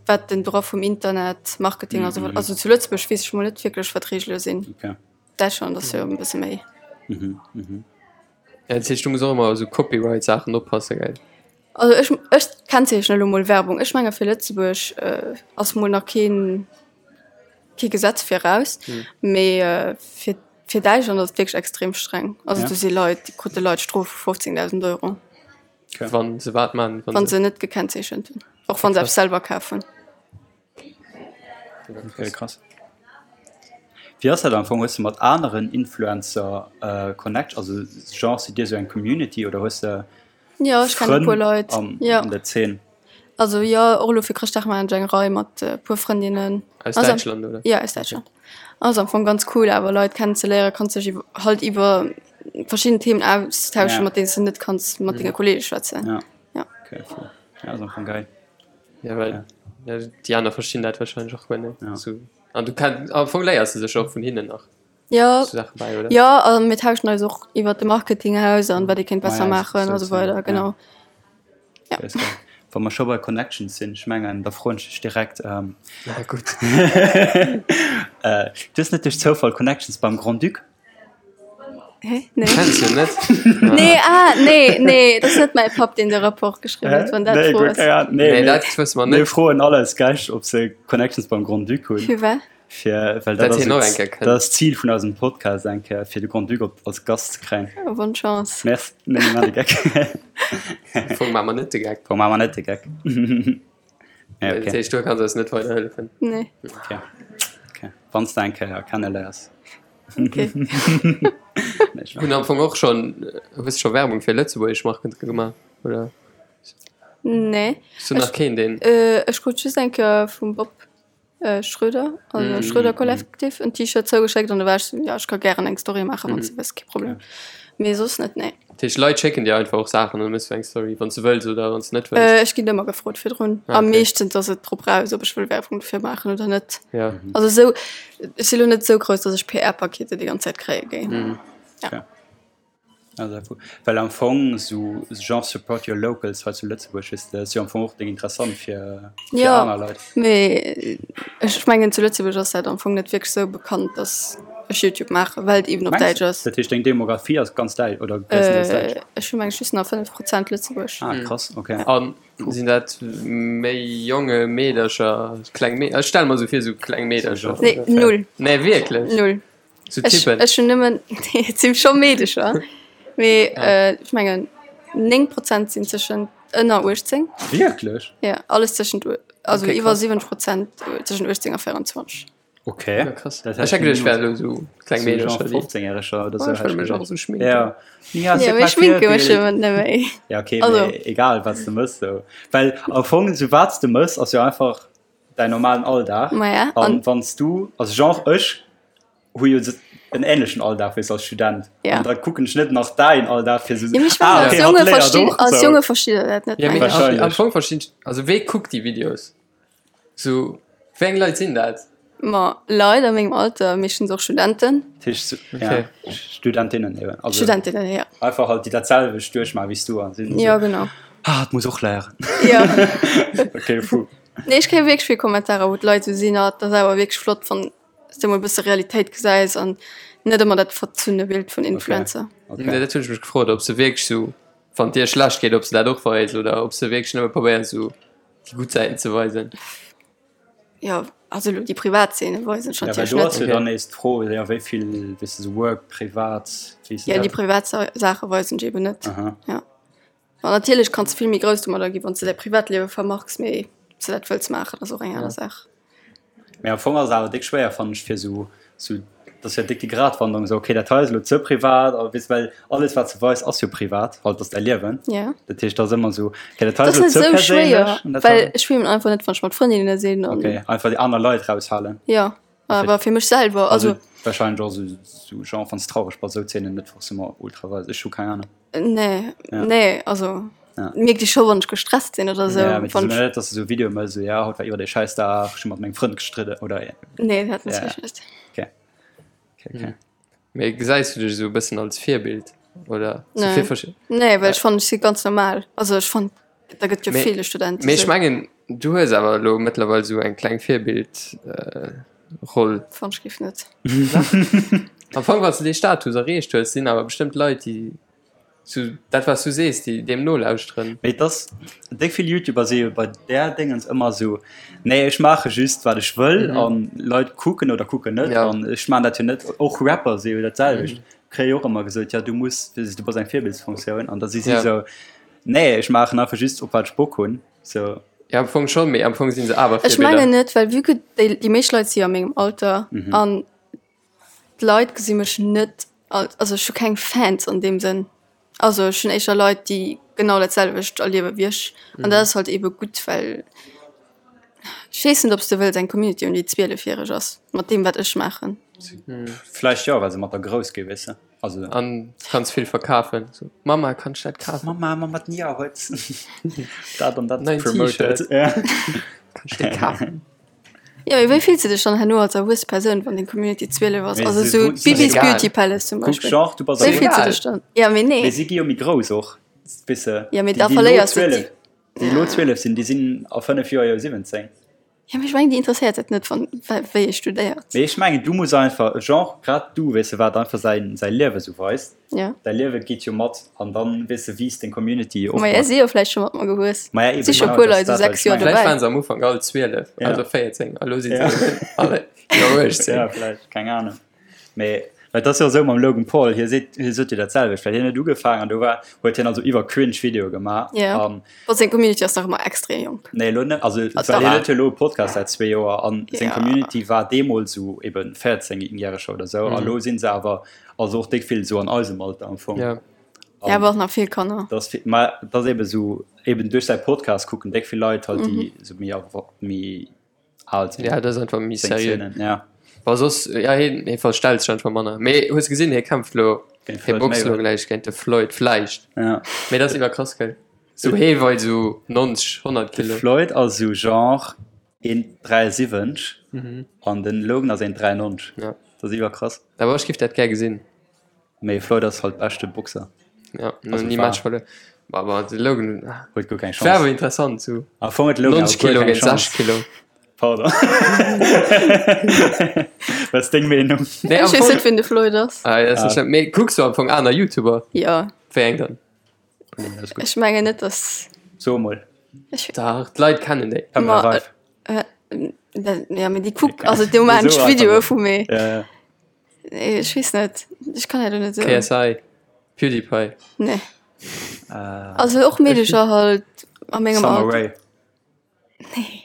wat den Droit vum Internet, Marketing a sou weider, also zu Lëtzebuerg weess ech mol net wierklech, wat d'Reegele sinn. Okay. Däitschland ass jo e bësse méi. Mhm, mhm. Ja, dat heescht, du muss och ëmmer op esou Copyright-Saachen oppassen, gell? Also ech, ech kennzeechnen elo mol Werbung. Ech menge fir Lëtzebuerg ass mol nach keen, kee Gesetz viraus, mee fir, fir Däitschland ass et wierklech extrem streng. Also do si Leit, déi krute Leit Strofe vu 15.000 Euro. Wann se wat man? Wann se net gekennzeechent hunn, och wann se eppes selwer kaf hunn. Okay, krass. Wéi ass dat am Fong? Hues de mat aneren Influencer Connect, also genre sidd Dir esou eng Community oder hues de Jo, ech kennen e puer Frënn Leit, an jo. an der Zeen? Also jo, och elo fir Chrëschtdag maachen ech eng Rei mat e puer Frëndinnen. Aus Also Däitschland, oder? Jo, aus Däitschland. Ass am Fong ganz cool awer Leit kennenzeléieren, kanns dech iwwer halt iwwer verschidden Themen austauschen, Ja. mat deenen s de net kanns mat denge Kollege schwätzen. Ja. Ja. Okay, cool. Ja, ass am Fong geil. Ja, well ja. déi aner verstinn dat wahrscheinlech och guer net. Ja. So. An du kann, am Fong léiers du sech och vun hinnen nach Ja, so Saache bei, oder? ja, a mir tauschen eis och iwwer de Marketing aus an wat ee kéint besser Ah ja, maachen a sou weider, ja. genau. Ja. Ist geil. Wa mer scho bei Connections sinn, ech mengen, da froen ech dech direkt, ähm, Na gutt. äh, du hues net duerch Zoufall Connections beim Grand-Duc? Hä? Nee. Kenns du net? Nee, ah, nee, nee, dat ass net mäi Papp, deen de Rapport geschriwwen huet, wann dat Nee, d'Fro guer ass. keng Ahnung. Nee, Nee, mir, dat wësse mer mir net. froen all eis Gäscht, ob se Connections beim Grand-Duc hunn. Fir wat? Fir, well dat Dat ass hien och et- eng Kéier kënnt. dat ass d'Zil vun eisem Podcast eng Kéier, fir de Grand-Duc op, als Gast ze kréien. Oh, bonne Chance. Merci. Nee, mir maachen de Geck. Am Fong maache mer net de Geck. Am Fong maache mer net de Geck. Nee, Dat okay. heescht, du kanns eis net weiderhëllefen. Nee. Okay. Okay. Wann s de eng Kéier kenneléiers. Okay. Nee, ich Hunn am Fong och schonn, hues scho Werbung fir lëtzebuergesch Marken gemaach, oder? Nee. Hues du nach keen, deen. Äh, ech krut just eng Kéier vum Bob äh, Schröder, also mm. Schröder Collective, en T-Shirt zougeschéckt an da war ech so, ja, ech ka gären eng Story maachen, wann s du wëlls, kee Problem. Mee soss net, nee. Dat heescht, Leit schécken dir einfach och Saachen an da méchs du eng Story, wann s du wëlls oder wann s du net wëlls? Äh, ech ginn ëmmer gefrot virdrun. Ah, A okay. meeschtens ass et drop raus, ob ech wëll Werbung dofir maachen oder net. Ja. Also esou, ech si lo net esou grouss, datt ech PR-Pakete déi ganz Zäit kréie géing. Mhm. Ja. Okay. Also, well am Fong sou genre support your locals hei zu Lëtzebuerg weess de, ass jo am Fong och déng interessant fir fir Ja, aner Leit. mee ech mengen zu Lëtzebuerg ass dat am Fong net wierklech sou bekannt, datt ech Youtube maachen, well et eben op Mengs Däitsch ass. Dat heescht deng Demografie ass ganz däitsch oder gréisstendeels däitsch? Äh, ech hu meng ech just nach 5 Prozent Lëtzebuerg. Ah krass, okay. An sinn dat méi jonge Meedercher, kleng Mee, ech stelle mer sou vir, sou kleng Meedercher? Nee, null. Nee, wierklech? Null. Sou Ech, Typen? ech hunn nëmmen, nee, et si scho Meedecher, mee Ah. ech mengen 9 Prozent sinn tëschent ënner 18. Wierklech? Ja, alles tëschent, also Okay, iwwer krass. 70 Prozent tëschent 18 a 24. Okay. Ja, krass. Ech hätt geduecht, et wären elo sou kleng Meedercher, déi. 15-Jähreger oder Oh, sou. ech wëll mech och sou schminken. Ja. Ja, Ja, mee schminke mech jo net méi. Ja, okay, Also. mee egal, wat s de mëss, sou. Well am Fong, sou wat s de mëss, ass jo einfach däin normalen Alldag. Ma ja, An an wann s du, also genre ech hu jo en ähnlechen Alldag wéi s als Student. Ja. An da kucken ech net nach däin Alldag fir sou, Ja, mee ech mengen, ah, als okay, hatt Jonge léiert verstinn, och als sou. Jonge versteet der dat net, Ja, mee mengen ech. am, am Wahrscheinlech. Fong verstinn ech, also wee kuckt déi Videos? Sou, wéi eng Leit sinn dat? Ma Leit a mengem Alter, meeschtens och Studenten. Dat heescht, sou, Okay. ja, Studentinnen eben. Also Studentinnen, ja. einfach halt, déi dat selwecht duerchmaachen wéi s du an sinn Ja, sou, genau. ah, et muss och léieren. Ja. Okay, fou. Nee, ech kréie wierklech vill Kommentarer, wou d'Leit esou sinn, ah, et ass awer wierklech flott, wann s de mol e bësse Realitéit gesäis an net ëmmer dat verzunne Bild vun Influencer. Okay. Nee, dat hunn ech mech gefrot, ob se wierklech sou, wann et dir schlecht geet, ob se dat och weisen oder ob se wierklech nëmme probéieren, sou déi gutt Säiten ze weisen. Jo, also elo déi privat Zeene weisen ech Ja, well natierlech do net. ass jo dann nees d'Fro, jo, wéi vill, weess de, sou Work, privat, wéi ass Ja, déi dat? privat Saache weisen ech eben net. Aha. Ja. An natierlech kanns de vill méi grouss domadder ginn, wann s de däi Privatliewe vermarks, mee ob s de dat wëlls maachen, ass och eng aner Saach. Mee am Fong ass et awer déck schwéier, fannen ech, fir sou, sou, dat ass jo déck déi Gratwanderung, sou, okay, dat hei ass elo ze privat, a weess, well alles, wat s de weis, ass jo privat, halt, ass däi Liewen. Ja. Dat heescht, dat ass ëmmer sou, okay, dat hei Dat ass ass elo net ze sou schwéier, perséinlech an dat well hei. ech filmen einfach net, wann ech mat Frëndinne sinn an. Okay, einfach déi aner Leit raushalen. Jo, awer fir mech selwer, Also also. wahrscheinlech och sou, sou genre, wann s traureg bass, sou Zeenen net forcément ultra weisen. Ech hu keng Ahnung. Nee, Ja. nee, also Ja. mierkt ech scho wann ech gestresst sinn oder sou. Ja, mee Wann net, ech, dass du sou Videoe mëss, sou, ja, haut war iwwer dee Schäissdag, ech hu mat mengem Frënd gestridden oder. nee, dat Ja. natierlech net. Okay. Okay, okay. Mee gesäis du dech esou e bëssen als Virbild oder sou Nee. fir verschi- Nee, well ech fannen, ech si ganz normal. Also ech fannen, da gëtt jo Mee- ville Studenten Mee ech sou. mengen, du hues awer elo mëttlerweil sou eng kleng Virbild äh, Roll. Fann ech géif net. Am Fong, wann s du dee Status erreecht hues, sinn awer bestëmmt Leit, déi sou dat wat s du sees, déi deem nolauschteren. Mee et ass, déck vill Youtuber si jo bei där Déngens ëmmer esou, nee ech maache just wat ech wëll an Leit kucken oder kucken net Ja. an ech maan dat jo net. Och Rapper si jo dat selwecht, kréie jo och ëmmer gesot, ja du muss, du bass eng Virbildsfunktioun an da si si Ja. esou, nee ech maachen einfach just op wat ech Bock hunn. Sou. Ja, am Fong schon, mee am Fong sinn se awer Ech Virbilder. mengen net, well vue que déi, déi meescht Leit si jo a mengem Alter an d'Leit gesi mech net als, also ech hu keng Fans an deem Sënn. Also ech hunn éischter Leit, déi genau dat selwecht erliewe wéi ech an dat ass halt eebe gutt, well ech weess net, ob s de wëlls eng Community hunn, déi 12 järeg ass mat deem wat ech maachen. Vläicht jo, well se mat der grouss gi, weess de. Also. An du kanns vill verkafen. So, Mama, kann ech dat kafen? Mama, Mama, d'Nia huet dat an dat Neien promoted. T-Shirt. Ja. Kann ech dee kafen? Jo, mee wéi fills de dech dann herno als erwuesse Persoun, wann deng Community 12 ass? Mee Also se- sou se- Bibis egal. Beauty Palace zum Kuck, Beispill. genre, du bass Wéi erwuess. fills du dech dann? Ja, mee nee. Mee si gi jo méi grouss och, weess de. Ja, mee Déi, da déi elo verléiers du 12, déi. déi elo 12 sinn, déi sinn a 5 Joer jo 17. Ja, mee ech mengen, déi interesséiert et net, wann, wéi ee studéiert. Mee ech mengen, du muss einfach, genre, grad du, weess de, wat einfach säin, säi Liewe sou weist. Ja. Däi Liewe geet jo mat an dann, weess de, wiisst deng Community och mat. Maja, si jo vläicht scho mat mer gewuess. Maja, eben, Si scho genau, puer dat Leit ass sou dat, wat 6 ech Joer mengen. Vläicht dobäi. waren se am Ufank all 12, Ja. also 14, a lo si se Ja. alle iwwer 18. Ja, vläicht, keng Ahnung. Mee, well et ass jo esou mam Logan Paul, hie seet, hie sot jo dat selwecht, well hien huet ugefaangen an do war, huet hien also iwwer cringe Videoe gemaach Ja. an. Bon, seng Community ass nach ëmmer extrem jonk. Nee, elo net, also Ah, well hien dach. huet jo elo e Podcast säit zwee Joer an seng Ja. Community war deemools esou eben 14 Järeger oder esou a lo sinn se awer, also och déck vill esou an eisem Alter am Fong. Ja. Ja, awer och nach vill Kanner. Dat ass vill, mä dat ass eben esou, eben duerch säi Podcast kucken déck vill Leit halt, déi esou méi, méi al sinn. Ja, dat ass einfach méi Seng seriö. Szenen, ja. Wa soss, ja, hien, hie verstellt sech einfach manner. Mee hues gesinn, hie kämpft lo, Géint hie Floyd boxt lo Mayweather. gläich géint de Floyd, vläicht. Ja. Mee dat ass iwwerkrass, gell? Sou hie weit sou 90, 100 De Kilo. Floyd ass sou genre 1,73 an den Logan ass 1,93. Ja. Dat ass iwwerkrass. Awer ech giff dat gär gesinn. Mee Floyd ass halt beschte Boxer. Ja, Also ni war- Match verluer. Aber de Logan ah, Huet guer keng war awer Chance. interessant sou. Am Fong huet de Logan 90 awer guer Kilo keng géint Chance. 60 Kilo. Pardon. Wat ass deng Meenung? Nee, am Ech weess Fong, net, wien de Floyd ass. ah, ja, ass net schlëmm. Mee kucks du am Fong aner YouTuber? Ja, Wéi eng dann? Alles gutt. ech mengen net, dass. So emol. Ech, Dach, d'Leit kennen déi. Pamela Ma, Reif. äh, dat, ja, mee déi kuck, also do maachen So ech einfach Videoe mol. vu mir. Ja, ja. Nee, ech weess net. Ech kann dat net sou. KSI, PewDiePie. Nee. Also och Meedecher halt a mengem Summer Alter. Rae. Nee.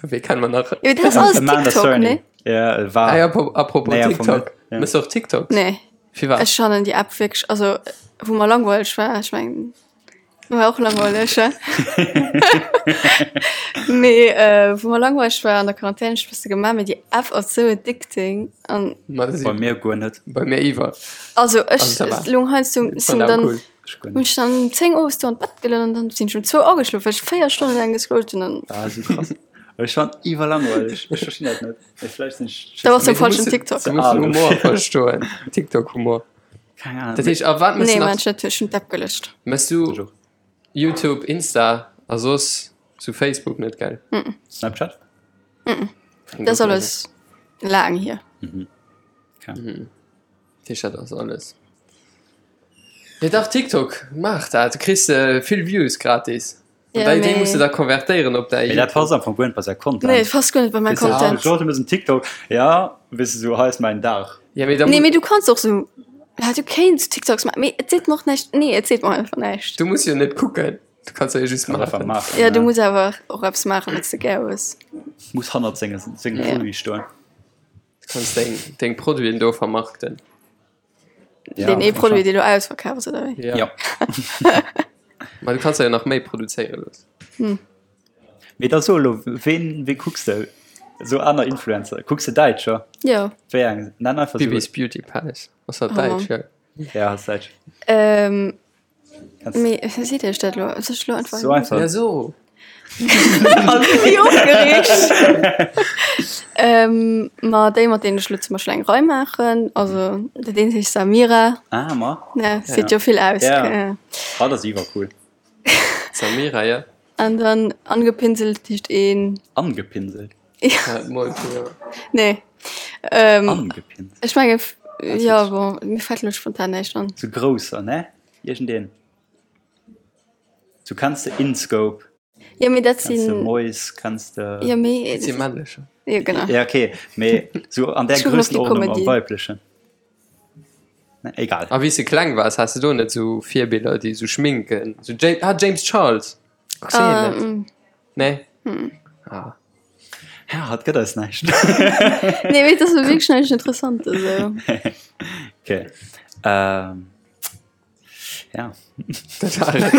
Wee kennen mer nach? Jo, dat ass alles Amanda TikTok, Cerny. ne? Ja, war. Ah, ja, apropos, apropos Nee, am Fong TikTok. net, ja. Mëss du och TikToks? Nee. Firwat? Ech fannen déi App wierklech, also wou mer langweileg war, ech mengen, war och langweileg, he? Mee wou mer langweileg war an der Quarantän, ech bësse gemaach, mee déi App ass sou addicting an. Ma dat Bei si mir guer net. bei mir iwwer. Also ech Also ça va. lung heiansdo Ech sinn fand awer dann cool. Ech guer hunn net. ech dann um 10 owes do an d'Bett gelunn an dann sinn ech um zwou ageschlof, well ech 4 Stonnen laang gescrollt hunn an. Ah, sou krass. Ech fand iwwer langweileg. Ech verstinn dat net. Mee vläicht sinn ech. Da bass du am Mee du falschen muss, TikTok. du muss Ah, den du. Humor verstoen. TikTok-Humor. Keng Ahnung. Dat heescht, a wat mëss Nee, du nach? man, ech hunn ech hunn d'App gelöscht. Mëss du Ech och. YouTube, Insta a soss sou Facebook net, gell? Snapchat? Dat ass alles laang hier. Okay. Dat heescht, dat ass alles. Jo dach, TikTok, maach dat, du kriss vill Views gratis. Ja, An déi mee- muss du da konvertéieren op däi Mee dat passt am Fong guer net bei säi Content. Nee, et passt guer net bei mäi Weess du, Content. Genre, du mëss en TikTok, ja, weess du, sou hei ass mäin Dag. Ja, mee da Nee, mee du kanns och sou, ja, du kéints TikToks maachen, mee et seet mer och näischt. Nee, et seet mer einfach näischt. Du muss jo net kucken, du kanns jo just Kann einfach maachen. maachen. Ja, du muss awer och eppes maachen, wat s de gär hues. Muss hannert senge, sengem Ja. Produit stoen. Du kanns deng, deng Produiten do vermarkten. Ja, Deen ee schon. Produit, dee lo ausverkaf ass, oder wéi? Ja. Ja. Ma du kanns der jo nach méi produzéiere loossen. Mee da so elo, ween, wee kucks de? Sou aner Influencer. Kucks de Däitscher? Jo. Wéi eng? Nenn einfach sou. Bibis Beauty Palace. Ass dat Oh däitsch? Mann. Ja. Ja, ass däitsch. Ähm, Kanns mee seet Iech dat elo? Soll ech elo einfach. So einfach. Ja, so. Wéi opgereegt! Ähm, ma déi, mat deenen ech elo zum Beispill eng Rei maachen, also dat eent heescht Samira. Ah, ma. Ja, seet jo vill aus. Ja. Ja. Ah, dat ass iwwercool. Samira, ja. An dann angepinselt heescht een. Angepinselt? Ja. Mol, ja. Nee. Ähm, Angepinselt. Ech menge, ja, bon, mir fält elo spontan näischt an. Sou grousser, ne? Iergendeen. Du kanns de InScope. Ja, mee dat Kanns de sinn. Mois, kanns de. Ja, mee. Dat si männlecher. Ja, genau. Ja, okay, mee sou an där Ech kucken op déi Grössenordnung am Comedy. weiblechen. Ne, egal. A wéi s de kleng waars, has de do net sou Virbiller, déi sou schminken? Sou James, ah, James Charles. Kucks de hien net? Ähm, Nee? Ah. Ja, hatt gëtt eis näischt. nee, mee dat ass wierklech näischt Interessantes, esou. Okay. Ähm. Ja. Dat war et.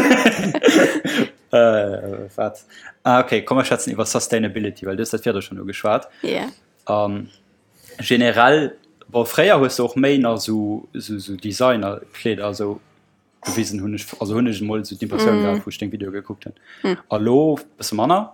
Äh, wat? Ah, okay, komm, mer schwätzen iwwer Sustainability, well du hues dat virdru schonn ugeschwat. Ja. An generell, bon, fréier hues de och méi nach sou, sou, sou Designer-Kleeder esou gewisen, hunn ech, also hunn ech emol esou d'Impressioun gehat, wou ech deng Videoe gekuckt hunn. A lo bësse manner.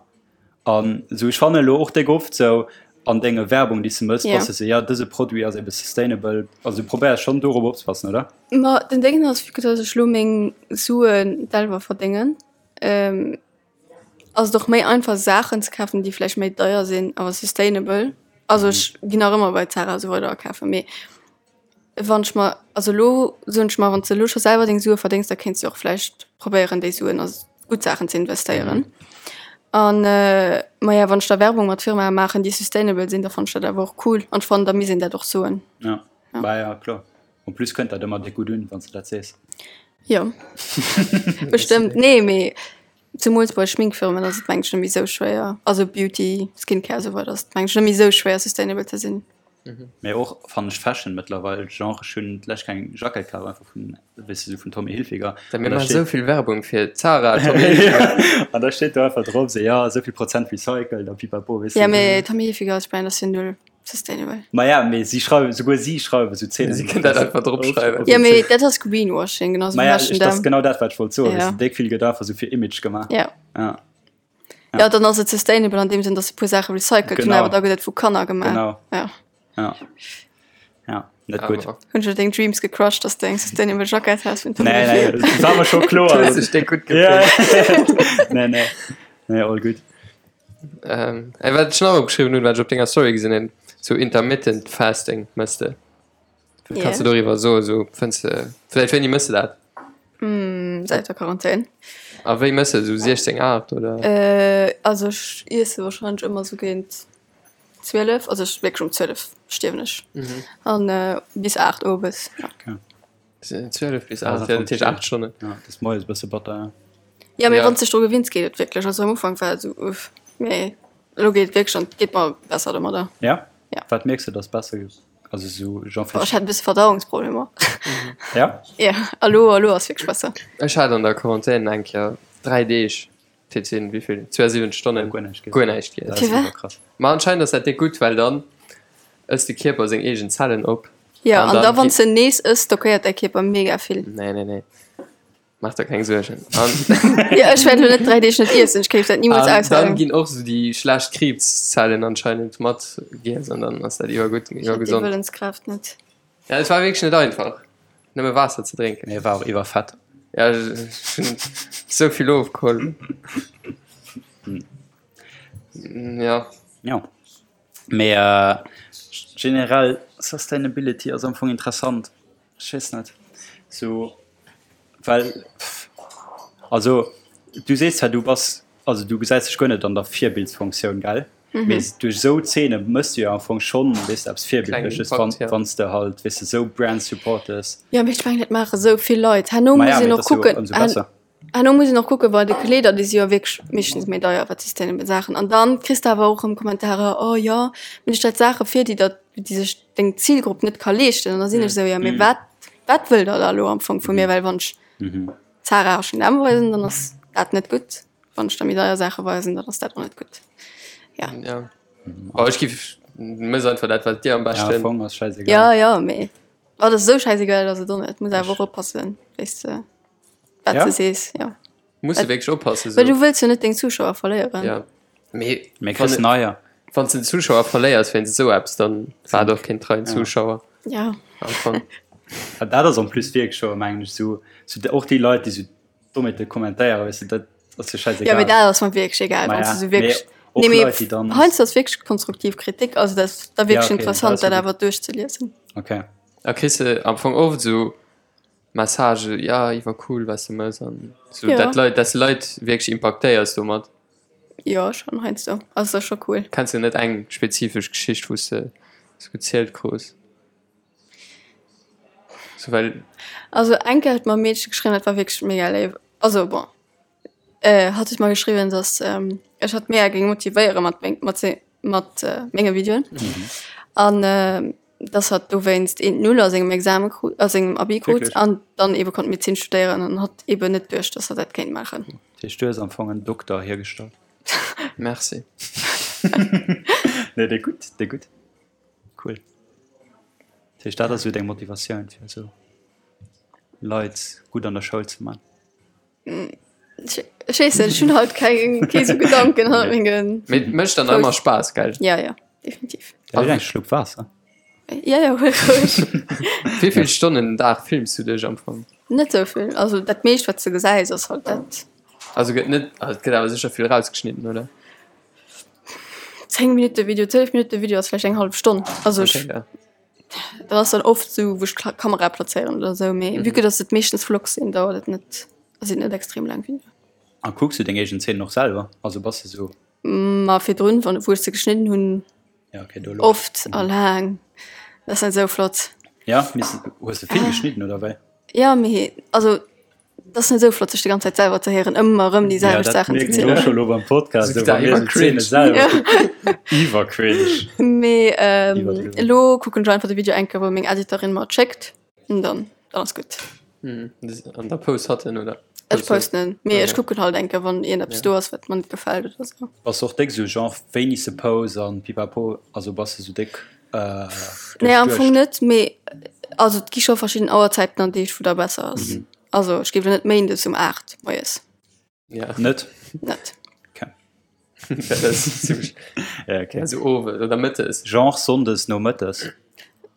An sou ech fannen elo och déck oft sou an denge Werbung déi s de mëss, Ja. bass de sou, ja dëse Produit ass ebe sustainable. Also du probéiers schonn dorop opzepassen, oder? Ma den Déngen ass, vu que dass ech lo meng Suen selwer verdéngen, ähm, Ass et och méi einfach Saachen ze kafen, déi vläicht méi deier sinn, awer sustainable. Also ech ginn nach ëmmer bei Zara a sou weider akafen, mee wann ech mer, also elo soen ech mer, wann s de elo scho selwer deng Sue verdéngs, da kéints de och vläicht probéieren déi Suen a gutt Saachen ze investéieren. An maja, wann ech da Werbung mat Firmae maachen, déi sustainable sinn, da fannen ech dat awer och cool an ech fannen, da misst een dat och soen. Ja, bah ja, kloer. En plus kënnt dat ëmmer déck gutt un, wann s de dat sees. Jo, bestëmmt. Nee, mee Zemools bei Schminkfirmen ass et mengen ech net méi esou schwéier, also Beauty, Skincare esou weider ass et mengen ech net méi esou schwéier sustainable ze sinn. Mee och fannen ech Fashion mëttlerweil, genre ech hunn d'lescht eng Jackett kaf einfach vun, weess de, sou vun Tommy Hilfiger. Da mir maachen esou vill Werbung fir Zara, Tommy Hilfiger. An da steet do einfach drop sou, jo esou vill Prozent recycled a pipapo, weess de. Ja mee Tommy Hilfiger als Brand ass jo null sustainable. Ma ja mee si schreiwen, souguer si schreiwen sou Zeenen. Si kënnen dat einfach drop schreiwen. Ja mee dat ass Greenwashing, genau sou wéi H&M. Dat ass genau dat wat ech wollt soen, weess de, déck vill gëtt einfach sou fir Image gemaach. Ja. Ja. Ja dann ass et sustainable an deem Sënn, datt se e puer Saache recycelt hunn, awer da gëtt et vu Kanner gemaach. Genau. Ja. Ja. Ja, net gutt. Hunn ech deng Dreams gecrushed, datt s de eng sustainable Jackett has vun Tommy Hilfiger? Nee, nee, dat war mer scho kloer. Du hues dech déck gutt gefillt. Nee, nee, nee, all gutt. Ähm, ey, wat ech nach opgeschriwwen hunn, wat ech op denger Story gesinn hunn, sou intermittent fasting mëss de. Wat kanns du doriwwer soen? Sou fënns de, vläicht wéini mëss de dat? Mm, säit der Quarantän. A wéi mëss de? Sou 16, 8 oder? Äh, also ech iesse wahrscheinlech ëmmer sou géint 12, also ech wierklech um 12 stierwen ech. An bis 8 owes, ja. Okay. 12 bis 8, ja, dat heescht 8 Stonnen. Ja, dat ass moies e bësse batter, ja. Ja, mee wann s de dech dru gewinns, geet et wierklech. Also am Ufank war et esou, uff, mee elo geet et wierklech an et geet mer besser domadder. Ja? Ja. Wat mierks de, dass besser geet? Also esou genre Boah, ech hat e bësse Verdauungsproblemer. Ja? Ja, a lo, a lo ass wierklech besser. Ech hat an der Quarantän eng Kéier 3 Deeg, dat sinn wéi vill, 72 Stonnen, Guer näischt giess. guer näischt giess. Dat ass Firwat? iwwer krass. Ma anscheinend ass dat déck gutt, well dann ësst de Kierper seng eegen Zellen op. Ja, an da wann s de nees ëss, stockéiert däi Kierper mega vill. Nee, nee, nee. Maach der keng Suergen. An Ja, ech wäert elo net 3 Deeg net iessen, ech kéif dat nimools an dann aushalen. ginn och sou déi schlecht Kriibszellen anscheinend mat giess an dann ass dat iwwergutt, Ech hätt déi iwwergesond. Wëllenskraaft net. Ja, et war wierklech net einfach, nëmme Waasser ze drénken. Mee war och iwwerfett. Ja, ech hunn sou vill ofgeholl. Ja. Jo. Mee generell Sustainability ass am Fong interessant. Ech weess net sou well also du sees zwar du bass also du gesäis dech guer net an der Virbildsfunktioun gell? Mee duerch esou Zeene mëss du jo am Fong schonn weess de eppes Virbildleches wann wann s de halt weess de esou Brands supportes. Jo mee ech mengen dat maache sou vill Leit. Herno Ma ja muss een mee och et ass jo kucken ëmsou besser. Herno muss een och kucken, bei de Kleeder, déi si jo wierklech meeschtens méi deier, wat sustainable Saachen. An dann kriss de awer och erëm Kommentarer, oh jo, mee du stells Saache vir, déi der, déi sech deng Zilgrupp net ka leeschten. An da sinn ech esou, jo mee wat, wat wëllt der da elo am Fong vu mir? Well wann ech Zara, H&M weisen, dann ass dat net gutt. Wann ech da méi deier Saache weisen, dann ass dat och net gutt. Ja. Ja. Oh, ech giff, mëss einfach dat, wat dir am Ja, am beschten. Fong ass schäisegal. Ja, ja, mee wat ass esou schäisegal ass et och net. Muss awer och oppassen, wéi s de. Wat Ja? du sees, ja. Muss du wierklech oppassen. Well du wëlls jo net deng Zuschauer verléieren. Ja. Mee Mee kriss neier. Wann du den Zuschauer verléiers wéinst esou eppes, dann war et och keen treien Zuschauer. Ja. Am Fong. Ja, dat ass en plus wierklech scho, mengen ech, sou, sou och déi Leit, déi sou domat kommentéieren, weess de, dat ass jo scheißegal. Ja, mee dat ass mer wierklech egal, Ma wann ja, du sou wierklech. mee och Nee, mee Leit, déi dann. heiansdo ass wierklech konstruktiv Kritik, also dat ass da wierklech Ja, okay, dat interessant, ass jo dat gutt. awer duerchzeliesen. Okay. A kriss de am Fong oft sou Message, ja iwwer cool was de mëss an sou Ja. dat Leit, dass de Leit wierklech impaktéiers domat. Jo schon heiansdo, also ass scho cool. Kenns de net eng spezifesch Geschicht wou s de sou gezielt krus? Sou well. Also eng Kéier huet mer e Meedche geschriwwen, dat war wierklech mega léif, also bon hatt huet mer geschriwwen, dass ech hatt mega géing motivéiere mat meng mat se mat menge Videoen an dass hatt dowéinst eent Null a sengem Exame krut, a sengem Abi krut an dann eebe konnt Medezin studéieren an hatt eeben net duecht, dass hatt dat kéint maachen. Dat heescht, du hues am Fong en Dokter hiergestallt? Merci. Nee, déi gutt, déi gutt. Cool. Dat heescht, dat ass esou deng Motivatioun, fir esou Leit gutt an der Schoul ze man? Ech weess net, ech hunn halt keng, kee sou Gedanken hannert mengen. Mee et mécht dann ëmmer Spaass, gell? Ja, ja, definitiv. Da huel eng Schlupp Waasser. Ja, ja, huel roueg. Wéi vill Stonnen den Dag films du dech am Fong? Net sou vill. Also dat meescht, wat s de gesäis, ass halt dat. Also gëtt net, also et gëtt awer sécher vill rausgeschnidden, oder? 10 Minutte Video, 12 Minutte Video ass vläicht eng hallef Stonn. Also ech, Okay, ja. dat ass dann oft sou, wou ech d'Kamera plazéieren oder sou, mee vue que dass et meeschtens Vlogs sinn, dauert et net, sinn et net extrem laang Videoen. A kucks du deng eegen Zeenen och selwer? Also bass de sou. Ma virdrun, wann, wou ech se geschnidden hunn, Ja, okay, do lo. oft a laang. Dat ass net sou flott. Ja, mee hues de vill geschnidden oder wéi? Ja, mee also dat ass net sou flott, sech déi ganz Zäit selwer ze héieren, ëmmer erëm déi Ja, selwecht dat Saachen ze mierken ech och zielen. scho lo beim Podcast, Sou sou wa mir iwwer sou d'Zeene cringe. selwer Ja. kucken. Iwwer cringe. Mee ähm, Iwwerdriwwen. elo kucken ech einfach de Video eng Kéier, wou meng Editorin mer et schéckt, an dann, dann ass gutt. Mhm. An da post hatt en, oder? Ech posten en, mee ech Okay. kucken halt eng Kéier, wann iergendeppes Ja. do ass, wat mer net gefält oder sou. Bass de och déck sou genre wéini s de post an pipapo, also bass de sou déck äh, Nee, am Fong duerchduecht? net, mee also et gi scho verschidden Auerzäiten an Deeg, wou da besser ass. Also ech géif elo net méindes um 8 moies. Ja. Net? Net. Okay. Dat ass zimmlech. Ja, okay. Also owes oder mëttes. Genre sonndes nomëttes.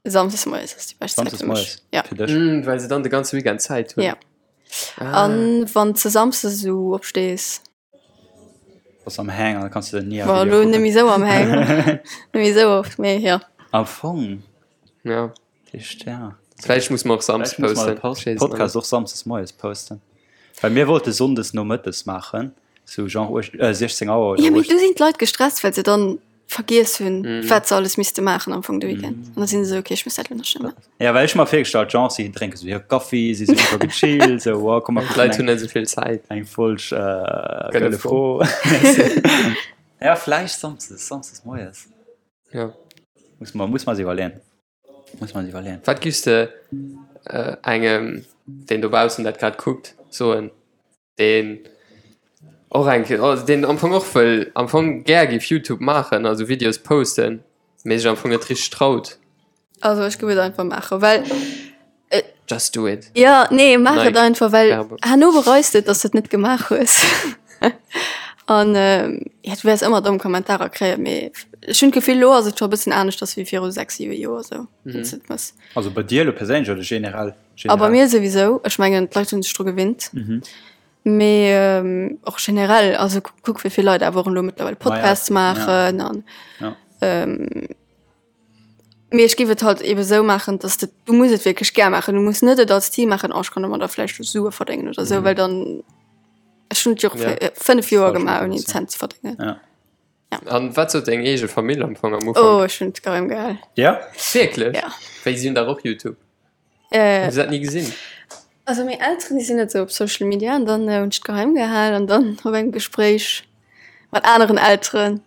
Samsdes moies ass déi bescht Zäit Samsdes fir mech. moies Ja. fir dech. Mm, well se dann de ganze Weekend Zäit hunn. Ja. Ah. An wann s de samsdes esou opstees. Bass am Hang an kanns du ni Bon, elo net méi esou am Hang. Net méi esou oft, mee jo. Am Fong. Ja. Echt, ja. Vläicht muss mer och samsdes Vläicht muss mer posten. de Post Ech weess et Podcast net. och samsdes moies posten. Well mir wollte sonndes nomëttes maachen, sou genre uech äh, 16 Auer oder Ja, mee 18. du sinn d'Leit gestresst, well se dann vergiess hunn, Mhm. wat se alles misste maachen am Fong de Weekend. An da sinn se esou, okay, ech muss dat elo nach schnell maachen. Ja, well ech hu mer virgestallt, genre si drénke sou hir Kaffi, si si super gechillt, sou wow, komm mer kucken D'Leit eng hunn net esou vill Zäit. eng Folg äh, Gëlle Gëlle Fro. Ja, vläicht samsdes, samsdes moies. Ja. Muss mer, muss mer eis iwwerleeën. Muss man iwwerleeën. Wat giffs de engem, deen dobaussen dat grad kuckt, soen, deen och eng Kéier, also deen am Fong och wëll, am Fong gär giff Youtube maachen, also Videos posten, mee sech am Fong net richteg traut? Also ech giff et einfach maachen, well Just do it. Jo, nee, maach et Nike einfach, well Werbung. herno bereis de et, dass de et net gemaach hues. An jo, du wäers ëmmer domm Kommentarer kréien, mee ech hunn d'Gefill, elo ass et scho e bëssen aneschters wéi viru 6, 7 Joer esou, wann s de et mëss. Also bei dir elo perséinlech oder generell? A bei mir souwisou, ech mengen, d'Leit hunn sech dru gewinnt. Mee och generell, also kuck wéi vill Leit awer och elo mëttlerweil Podcasts maachen an Mee ech géif et halt ebe sou maachen, dass de, du muss et wierklech gär maachen. Du muss net et als Zil maachen, oh ech kann domadder vläicht Sue verdéngen oder sou, well dann, ech hunn et jo och Ja. 5 Joer Falsch gemaach ouni en Motivation. Cent ze verdéngen. Ja. An wat sot deng eege Famill am Fong am Oh, Ufank? ech hunn et geheim gehal. Ja? Wierklech? Ja. Wéi si hunn dach och YouTube. Äh, Hunn se dat ni gesinn? Also meng Elteren, déi sinn net sou op Social Media an dann hunn ech et geheim gehal an dann op engem Gespréich mat aneren Elteren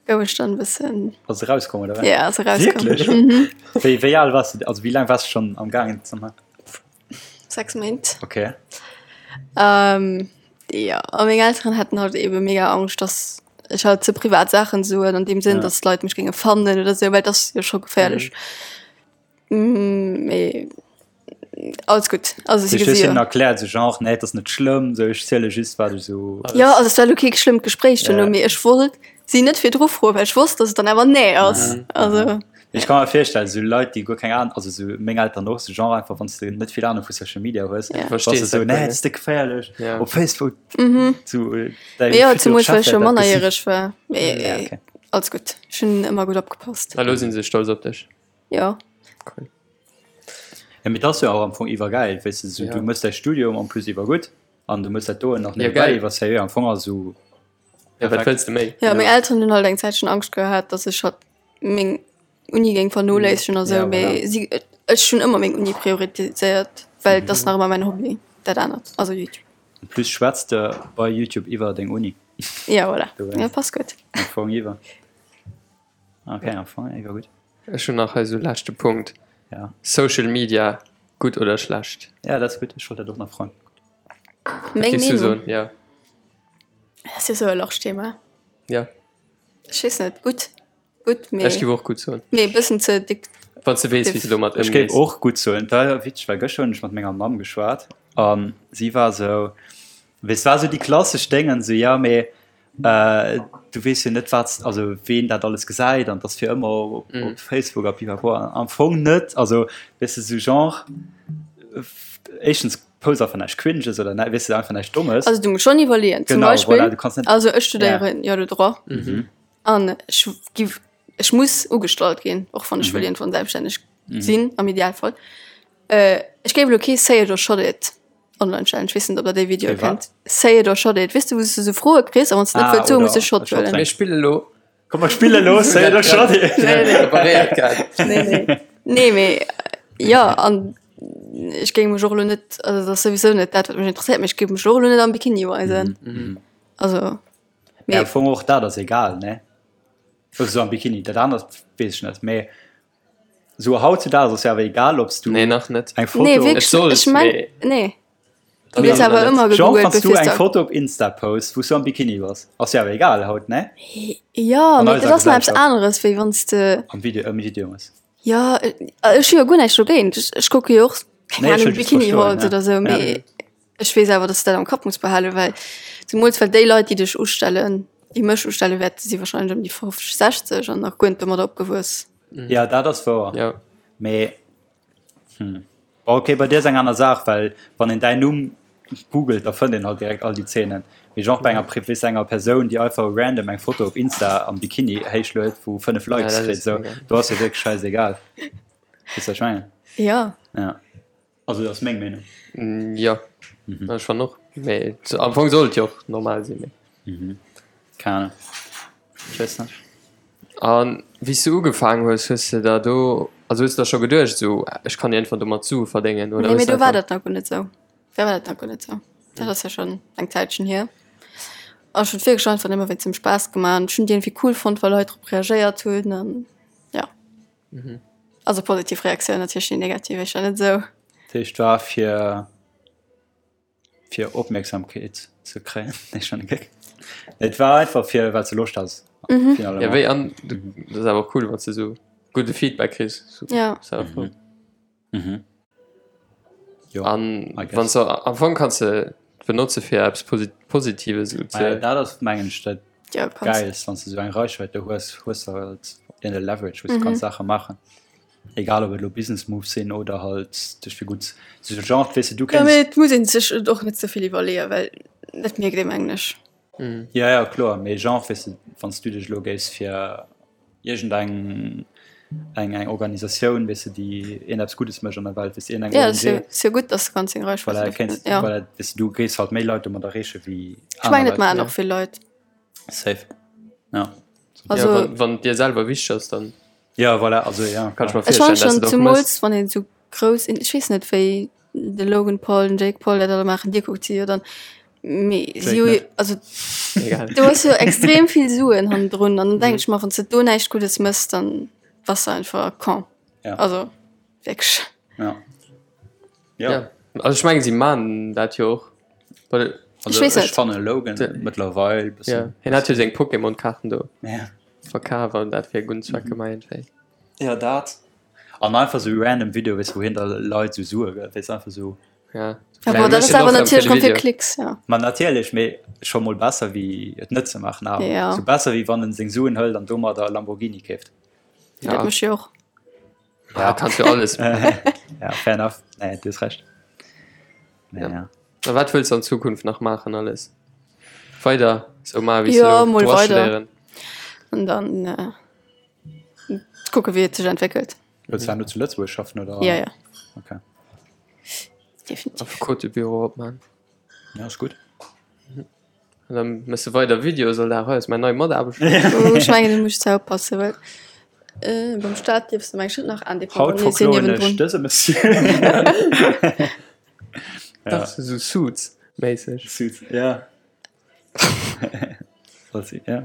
Gouf ech dann e bëssen. Ass erauskomm oder wat? Ja, ass erauskomm. Wierklech? Mhm. Wéi, wéi al wars du, also wéi laang wars du schonn am gaangen ze man? 6 Méint. Okay. Ähm, ja, a meng Elteren haten halt ebe mega Angscht, dass ech halt ze privat Saachen soen, an deem Sënn, Ja. dass d'Leit mech géinge fannen oder sou, well et ass jo scho geféierlech. Mee alles gutt. Also si Du hues gesi hinnen jo. erkläert, sou genre, nee, et ass net schlëmm, sou ech ziele just wat ech sou. Jo, also et war elo kee schlëmmt Gespréich duerno, Ja. mee ech wollt si net virdru froen, well ech wosst, dass et dann awer nee ass. Ja. Also. Ech ka mer virstellen, sou Leit, déi guer keng Ahnung, also sou meng Eltern och, sou genre einfach, wann s de net vill Ahnung vu Social Media hues, Ja. bass de Verstees sou, dat nee, guer et ass déck geféierlech, Ja. op Facebook, Mhm. sou däi Mee jo, future zemools well Chef ech jo wäert dat gesinn. mannerjäreg war. Mee Ja, okay. alles gutt, ech hunn ëmmer gutt opgepasst. A lo sinn se stolz op dech. Jo. Cool. Ja, mee dat ass jo och am Fong iwwergäil, weess de, sou Ja. du mëss däi Studium en plus iwwergutt an du mëss dat doen nach Ja, nebenbäi geil. iwwer sérieux am Fong ass sou Ja, wat perfekt. wëlls de méi? Ja, Ja. meng Elteren hunn halt eng Zäitchen Angscht gehat, dass ech halt meng Uni géing vernoléissegen a sou, Ja, voilà. mee si, ech hunn ëmmer meng Uni prioritiséiert, well et ass nach ëmmer mäin Hobby, dat anert, also Youtube. En plus schwätz de bei Youtube iwwer deng Uni. Ja, voilà. Dowéinst. Ja, passt gutt. Am Fong iwwer. Okay, am Fong iwwer gutt. Ech hunn nach hei sou leschte Punkt. Ja. Social Media, gutt oder schlecht? Ja, dat ass gutt. Ech wollt dat och nach froen. Meng Wat géifs du Meenung? soen? Ja. Dat ass jo sou e large Thema. Ja. Ech weess net. Gutt. Gutt, mee. Ech géif och gutt soen. Mee e bëssen ze dick. Wann s de weess, wéi s de domat Ech géif ëmgees. och gutt soen. Et war witzeg, well gëschter hunn ech mat menger Mamm geschwat a si war sou, weess, war sou déi klassesch Déngen, sou, ja mee Du weess jo net wat also ween dat alles gesäit an dass fir ëmmer op, mm. op Facebook a pipapo am Fong net also weess de sou genre éischtens. Post einfach näischt Cringes oder nä, weess de, einfach näischt Dommes. Also du muss schon iwwerleeën. Zum Genau, Beispill, voilà, du kannst net. also ech studéieren jo de Droit an ech giff, ech muss ugestallt ginn, och wann ech wëll iergendwann selbststänneg sinn, am Idealfall. Ech géif elo kee Say it or shot it online stellen. Ech weess net, ob der déi Videoe Kee wat? kennt. Say it or shot it, weess de, wou s du sou Froe kriss a wann s de net Ah, wëlls soen, oder muss de Shot e Shot huelen. Mir spille lo. Komm mer spille lo Say it or shot it. Nee, nee. Preparéiert gehat. Nee, nee. Nee, mee jo, an ech géing mech och elo net, also dat ass souwisou net dat, wat mech interesséiert, mee ech géif mech och elo net am Bikini weisen. Also, Ja, mee am Fong och dat ass egal, ne? Also sou am Bikini, dat anert weess ech net, mee sou hautzudaags ass jo awer egal, ob s du Nee, nach net. eng Foto. nee, wierklech, Et sollt, ech meng, mee- nee. Du Nee, gëss awer ëmmer Genre, gegoogelt, wann s du bevir eng s de. Foto op Insta posts, wou s du am Bikini bass, ass jo awer egal haut, ne? Jo, An mee eiser dat ass nach eppes Gesellschaft. aneres, wéi wann s de. Am Video, am Video ass. Jo, ech hu jo guer näischt dogéint. Ech, ech kucke jo och, keng Nee, ech Ahnung, wëll just Bikini verstoen, Hauls ja. oder sou, Ja. mee ech weess awer, dass de dat am Kapp muss behalen, well zemools well déi Leit, déi dech ustellen, déi mech ustelle wäerten, si warscheinlech ëm déi 50, 60 an nach guer net domadder opgewuess. Ja, dat ass wouer. Ja. Mee, hm. Bon, okay, bei dir ass eng aner Saach, well wann een däin Numm googelt, da fënnt een halt direkt all déi Zeenen. Mee genre bei enger Pri weess enger Persoun, déi einfach random eng Foto op Insta am Bikini héichluet, wou 5 Ja, Likes dat kritt, ass sou, egal. do ass jo wierklech schäisegal. Weess wat ech mengen? Ja. Ja. Also dat ass meng Meenung. Jo, ech fannen och. Mee am Fong soll et jo och normal sinn. Mee. Keng Ahnung. Ech weess net. An wéi s du ugefaangen hues, hues de der do, also hues de der scho geduecht esou, ech kann iergendwann domat Sue verdéngen oder Nee, hues mee de do war einfach. dat nach guer net esou. Da war dat nach guer net esou. Dat ass jo schonn eng Zäitchen hier. An ech hunn et wierklech einfach nëmme wéinst dem Spaass gemaach an ech hunn et iergendwéi cool fonnt, wa Leit drop reagéiert hunn an ja. Also positiv Reaktioun natierlech, déi negativ éischter net esou. Dat heescht war fir fir Opmierksamkeet ze kréien. Nee, schon e Geck. Et war einfach fir well s de Loscht has. Mhm. Finalement. Ja, wéi an dat ass awer och cool, wann s de esou gudde Feedback kriss. So, Ja. ass awer cool. Mhm. Jo, An I guess. wann s du am Fong kanns de benotze fir eppes Posi Positives esou Ah ja, ze. dat ass mengen ech dat Ja, kanns. Geilst, wann s de esou eng Reichweite hues, hues de halt een Leverage, wou s de kanns Saache maachen. Egal ob et elo Business Moves sinn oder halt dech fir gutt sou Genre, weess de, du Ja, kéints. mee et muss een sech et och net ze vill iwwerleeën, well dat mierkt ee mengen ech. Ja, ja, kloer, mee Genre, weess de, wann s du dech elo géifs fir iergendeng eng eng Organisatioun, weess de, déi iergend eppes Guddes mécht an der Welt, weess de, iergendeng Ja, ONG. ass jo, ass jo gutt, dass du kanns deng Reichweite Voilà, dofir kéints, ja. voilà, weess de, du géifs halt méi Leit domat erreeche wéi Ech aner mengen, et Leit. maachen och vill Leit. Safe, ja. Also. Ja, wann, wann et dir selwer wichteg ass, dann. Ja, voilà, also ja. Kann ich mir Ech fannen virstellen, dass schon du dat och zumools mëss. wann een sou grouss in ech weess net wéi de Logan Paul den Jake Paul dat alle maachen dir kuckt si jo dann mee si Jake hu net. also Egal. du hues jo extrem vill Suen hannendrun an dann denk ech mer wann s de do näischt Guddes mëss dann bass de einfach con Ja. also wierklech. Ja. Ja. Ja. Also ech mengen si man dat jo och. Well, Also Ech weess ech net. fanne Logan mëttlerweil ja, bëssen. hien hat jo seng Pokémon-Kaarten do Ja. verkaf an dat fir e gudden Zweck gemaach iergendwéi. Ja, dat. An einfach sou random Video, weess, wou hien da Leit sou Sue gëtt, weess, einfach sou. Ja. Ja, bon, dat ass awer natierlech rëm fir Klicks, ja. Ma natierlech, mee scho mol besser wéi et net ze maachen awer. Ja. Sou besser wéi wann en seng Suen hëlt an domadder e Lamborghini keeft. Ja. Dat mécht jo och. Ja, kannst jo alles. Ja, fair enough. Nee, du hues Recht. Nee, Ja. ja. A wat wëlls du an Zukunft nach maachen alles? Weider sou maachen wéi s du Ja, elo mol Droit weider. studéieren? An dann äh, kucke wéi et sech entwéckelt. Wëlls du awer nur zu Lëtzebuerg schaffen oder? Ja, ja. Okay. Definitiv. Affekotebüro opman. Ja, ass gutt. An dann mëss de weider Videos all Dag. Hei ass mäin nei Mataarbechter. Oh, ech mengen, do muss ech zwar oppassen, well äh, beim Staat dierfs de meng ech net nach Haut indépendant nee, sinn verkloen ech niewendrun. dëse Monsieur. Dach, sou Suits-méisseg. Suits, ja. Soll si, ja.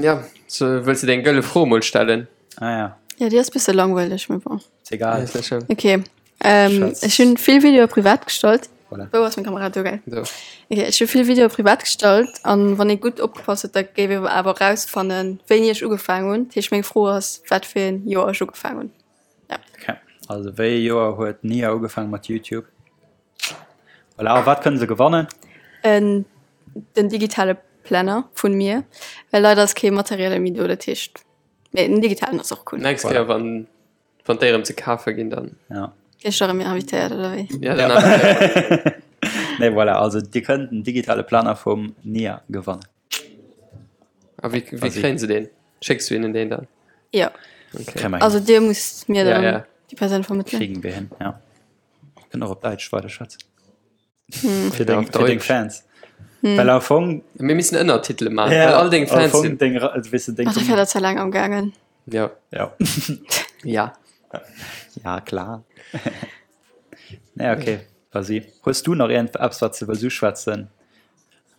Ja, so, wëlls de deng gëlle Fro mol stellen? Ah ja. Ja, déi ass bësse langweileg, mee bon. Ist egal. Ist net schlëmm. Okay. Ähm, Schatz. ech hunn vill Videoe privat gestallt. Voilà. Wou ass meng Kamera? Do, gell? Do. Okay, ech hu vill Videoe privat gestallt an wann ee gutt opgepasst huet, da géif ee awer erausfannen, wéini ech ugefaangen hunn. Dat heescht, meng Fro ass, wat fir een Joer ech ugefaangen hunn. Ja. Okay. Also wéi ee Joer huet d'Nia ugefaangen mat YouTube? Voilà, a wat kënne se gewannen? En, den digitale Planner vun mir, well leider ass kee materielle méi do, dat heescht, mee den digitalen ass och cool. Nächst Kéier, wann, wann déi erëm ze kafe ginn, dann Ja. Ginn ech da rëm invitéiert oder wéi? Ja, dann invitéiere. Nee, voilà, also Dir kënnt den digitale Planer vum Nia gewannen. A wéi, wéi kréien se deen? Schécks du hinnen deen dann? Ja. Okay. Also Dir musst mir Ja, dann ja. déi Persoun vermëttelen. Kriegen wir hin, ja. Kënnt och op Däitsch weiderschwätzen. Hm. Fir deng, Auf fir deng Deutsch. Fans. Well am Fong, Mir missen Ënnertitele maachen, well all deng am Fans Fong sinn. deng, also, weess du, deng Ach, dafir dat ze laang am gaangen. Ja. Ja. Ja. Ja, klar. Nee, okay, vas-y. Hues du nach iergend eppes, wat s de wëlls uschwätzen?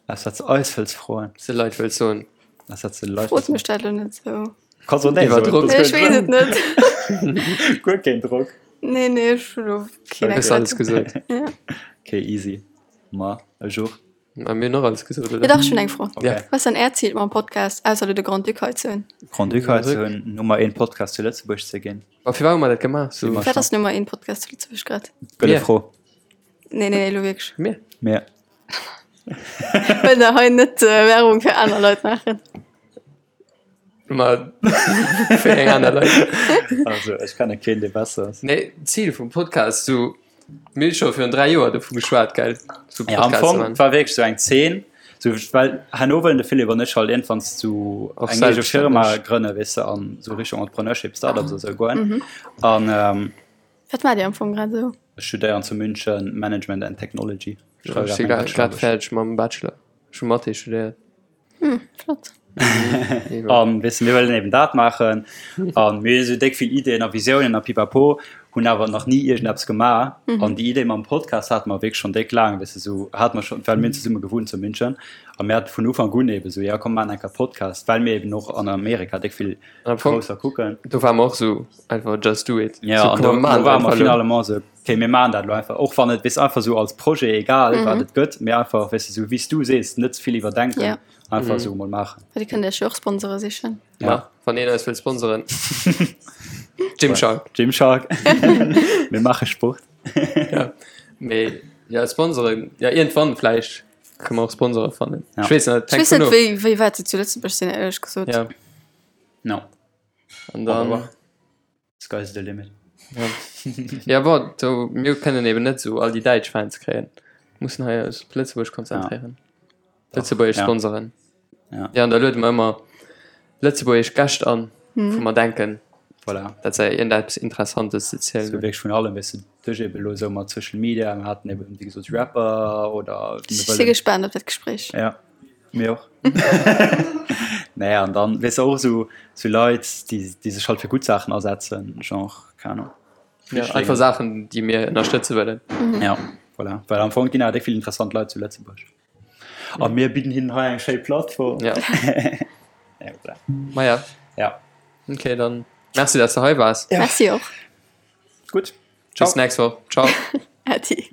Eppes, wat s de eis wëlls froen? S de Leit wëlls soen? Eppes, wat s de de Leit Frot wëlls mech dat elo net sou. Kanns och nee Iwwer soen. Drock. Nee, ech weess et net. Guer keen Drock. Nee, nee, ech hu lo keen Hues alles gesot. Ja. Okay, easy. Ma, ech och. Ma mir hunn och alles gesot, oder? Jo dach, ech hunn eng Fro. Okay. Ja. Wat ass dann Äert Zil mam Podcast, ausser elo de Grand-Duc hei ze hunn? Grand-Duc hei ze hunn, Nummer een Podcast zu Lëtzebuerg ze ginn. Ma firwat hu mer dat gemaach? So, Wat ass Nummer een Podcast zu Lëtzebuerg grad? Gëlle Mir. Fro. Nee, nee, elo wierklech. Mir. Mir. Wëll der hei net Werbung fir aner Leit maachen? Ma fir eng aner Leit. Also ech kenne keen dee besser ass. Nee, d'Zil vum Podcast sou mir hu scho virun 3 Joer dovu geschwat gell sou Ja, am Podcast Fong man. war wierklech sou eng Zeen, sou well herno wëllen de Philippe an ech halt iergendwann sou Och eng eege Firma selbststänneg. grënne weess de an sou Richtung Entrepreneurship, Startups a sou goen an ähm, Wat maacht Dir am Fong grad esou? Ech studéieren zu München Management and Technology. Ech schreiwe Ech si grad meng grad grad Bachelor-Aarbecht. fäerdeg mam Bachelor. Ech hu Mathé studéiert. Hm, flott. An weess de, mir wëllen eben dat maachen an mir hu sou déck vill Ideeën a Visiounen a pipapo, hunn awer nach ni iergendeppes gemaach. An déi Idee mam Podcast hate mer wierklech schonn déck laang, weess de, sou hate mer schonn, well mir hunn zesumme gewunnt zu München a mir hate vun Ufank un eben sou, jo komm mir maachen eng Kéier Podcast, well mir eben och an Amerika déck vill Am Fong, Grousser kucken. do ware mer och sou einfach just do it. Ja, So, an komm, do, mir do maachen ware einfach mer elo. finalement sou, okay, mir maachen dat elo einfach, och wann et, weess, einfach sou als Projet, egal wat et gëtt, mee einfach, weess de, sou wéi s du sees, net ze vill iwwerdenken, Ja. einfach sou emol maachen. Well Dir kënnt Iech jo och Sponsore sichen. Ja. Ma, wann een eis wëll sponsoren. Gymshark. Gymshark. Mir maache Sport. Ja. Mee, ja, Sponsoren, ja, iergendwann vläicht kënne mer och Sponsore fannen. Ja. Ech weess net, Ech hänkt weess net, vun of. wéi, wéi wäit se zu Lëtzebuerg sinn, éierlech gesot. Ja. No. An dann. Aber sky's the limit. Ja, ja bon, do, mir kënnen eben net sou all déi däitsch Fans kréien. Mussen hei eis op Lëtzebuerg konzentréieren. Ja. Lëtzebuergesch Ja. Sponsoren. Ja. Ja, an da luede mer ëmmer lëtzebuergesch Gäscht an, wou mer denken, Voilà. dat se iergendeppes Interessantes ze zielen So hunn. wierklech vun allem, weess de, duerch eben elo esou mat Social Media, mir haten eben, wéi gesot, Rapper oder Ech si gespaant op dat Gespréich. Ja. Mir och. Naja, an dann, weess de, och esou, esou Leit, déi, déi sech halt fir gutt Saachen asetzen, genre, keng Ahnung. Ja, einfach Saachen, déi mir ënnerstëtze wëllen. Ja, voilà. Well am Fong ginn awer déck vill interessant Leit zu Lëtzebuerg. A mir bidden hinnen hei eng schéi Plattform. Ja. Ja, voilà. Maja. Ja. Okay, dann merci, dass du hei waars. Ja. Merci och. Gutt. Ciao. Bis nächst Woch. Ciao. Äddi.